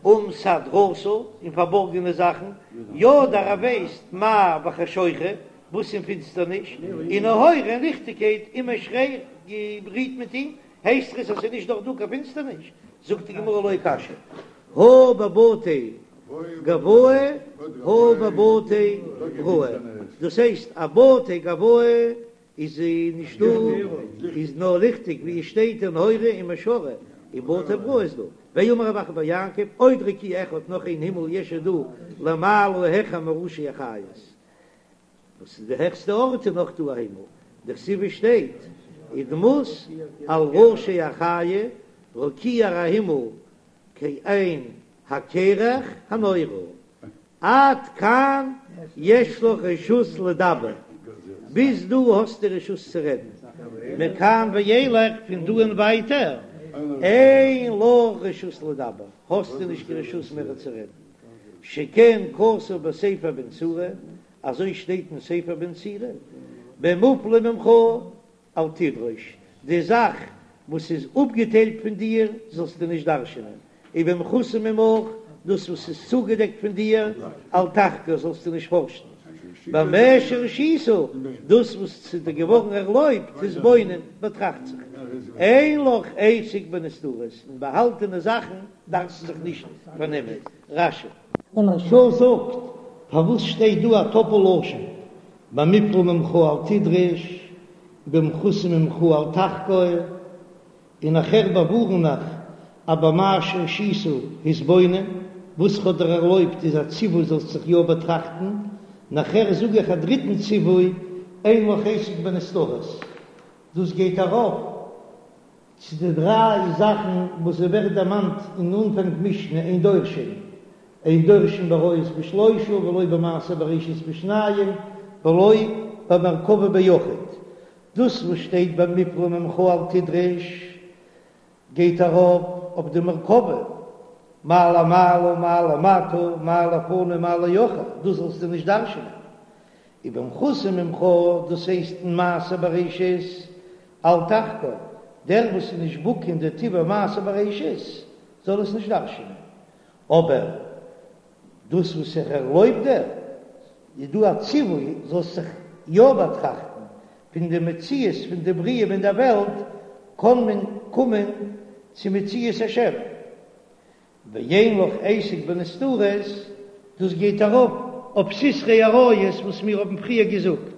ומסתרתא, און פארבארגענע זאכן, ידע ער ווייסט מה בחשוכא, וואס אין פינסטערניש, ונהורא און ליכטיגקייט עמו שרי רוהט מיט אים, הייסט עס אז ס'איז נישט דאך דא קיין פינסטערניש? זאגט די גמרא לא קשיא, הא בבתי גואי הא בבתי בראי, דאס הייסט א בתי גואי איז נישטא איז נאר ליכטיג ווי עס שטייט ונהורא עמו שרי, און בתי בראי איז דא, ואמר רב אחא בר יעקב עוד רקיע אחד נאך איין הימל יש איז דא למעלה העכער מראשי החיות. וואס איז די העכסטע ארט איז נאך דא א הימל, דכתיב עס שטייט ודמות על ראשי החיה רקיע א הימל כעין הקרח הנורא, עד כאן יש לך רשות לדבר, ביז דא האסטו רשות צו רעדן, מכאן ואילך פון דא און ווייטער. אין לך רשות לדבר, האסטו נישט קיין רשות מער צו רעדן, שכן כתוב בספר בן סירא, אזוי שטייט אין ספר בן סירא, במופלא ממך אל תדרוש, די זאך וואס איז אפגעטיילט פון דיר זאלסטו נישט דרש'ענען, ובמכוסה ממך, דאס וואס איז צוגעדעקט פון דיר, אל תחקור, זאלסטו נישט פארשן, במה שהורשית, דאס וואס ס'איז דיר געווארן ערלויבט, התבונן, באטראכט זיך, אין לך עסק בנסתרות, אין באהאלטענע זאכן דארפסטו זיך נישט פארנעמען. רש"י. דער מהרש"א זאגט, פארוואס שטייט דא א טאפל לשון, במופלא ממך אל תדרש, ובמכוסה ממך אל תחקור, און נאכהער באווארן איך אז במה שהורשית התבונן, וואס כ'האב דיר ערלויבט איז א ציווי זאלסט זיך יא באטראכטן, נאכהער זאג איך א דריטן ציווי אין לך עסק בנסתרות, דאס גייט ארויף צו די דריי זאכן וואס ס'ווערט דערמאנט אין אנפאנג משנה אין דורשין, אין דורשין בעריות בשלושה ולא במעשה בראשית בשניים ולא במרכבה ביחיד, דאס וואס שטייט במופלא ממך אל תדרש גייט ארויף אויף די מרכבה, מה למעלה מה למטה מה לפנים מה לאחור, דאס זאלסטו נישט דרש'נען. ובמכוסה ממך, דאס הייסט אין מעשה בראשית, אל תחקור, דער וואס איז נישט בקי אין די טיבע מעשה בראשית זאל עס נישט דרש'נען, אבער דאס וואס איך ערלויב דיר, איז דא א ציווי זאלסט זיך יא באטראכטן, פון די מציאות פון די בריאה אין דער וועלט קען מען קומען צו מציאות השם, ואין לך עסק בנסתרות, דאס גייט ארויף אויף סתרי עריות וואס מיר האבן פריער געזאגט.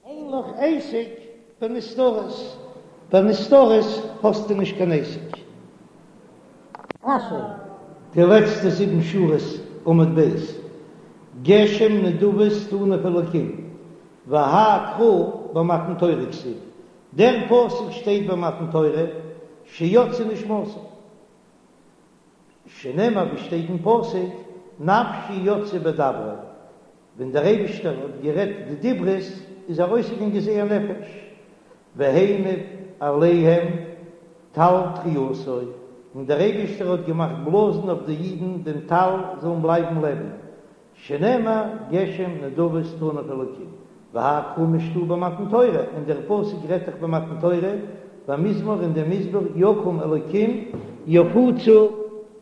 אין לך עסק בנסתרות, בנסתרות האסטו נישט קיין עסק. רש"י. די לעצטע זיבן שורות עמוד ב', גשם נדבות תנף אלקים, והאי קרא במתן תורה כתיב, דער פסוק שטייט ביי מתן תורה, שיצאה נשמתן. שנאמר ווי שטייט אין פסוק, נפשי יצאה בדברו, ווען דער אייבישטער האט גערעדט די דיברות איז ארויסגעגאנגען זייער נפש, והניף עליהם טל תחיותו, און דער אייבישטער האט געמאכט בלאזן אויף די אידן דעם טל זאלן בלייבן לעבן, שנאמר גשם נדבות תנף אלקים, והאי קרא משתעי במתן תורה, און דער פסוק רעדט דאך במתן תורה, במזמור אין דעם מזמור יקום אלקים יפוצו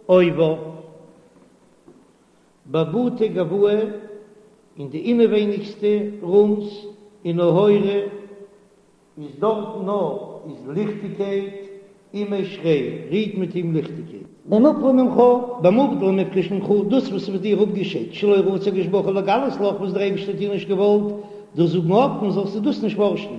אויביו, בבתי גואי אין די אינעווייניגסטע רומס ונהורא איז דארטן נאר איז ליכטיגקייט, עמיה שרי, רוט מיט אים ליכטיגקייט. במופלא ממך, במובדל ומופרש ממך, דאס וואס איז פון דיר אפגעשיידט, שלא רצה הקדוש ברוך הוא לגלות לך, וואס דער אייבערשטער האט דיר נישט געוואלט דאס זאגן אפן, זאלסטו דאס נישט פארשן.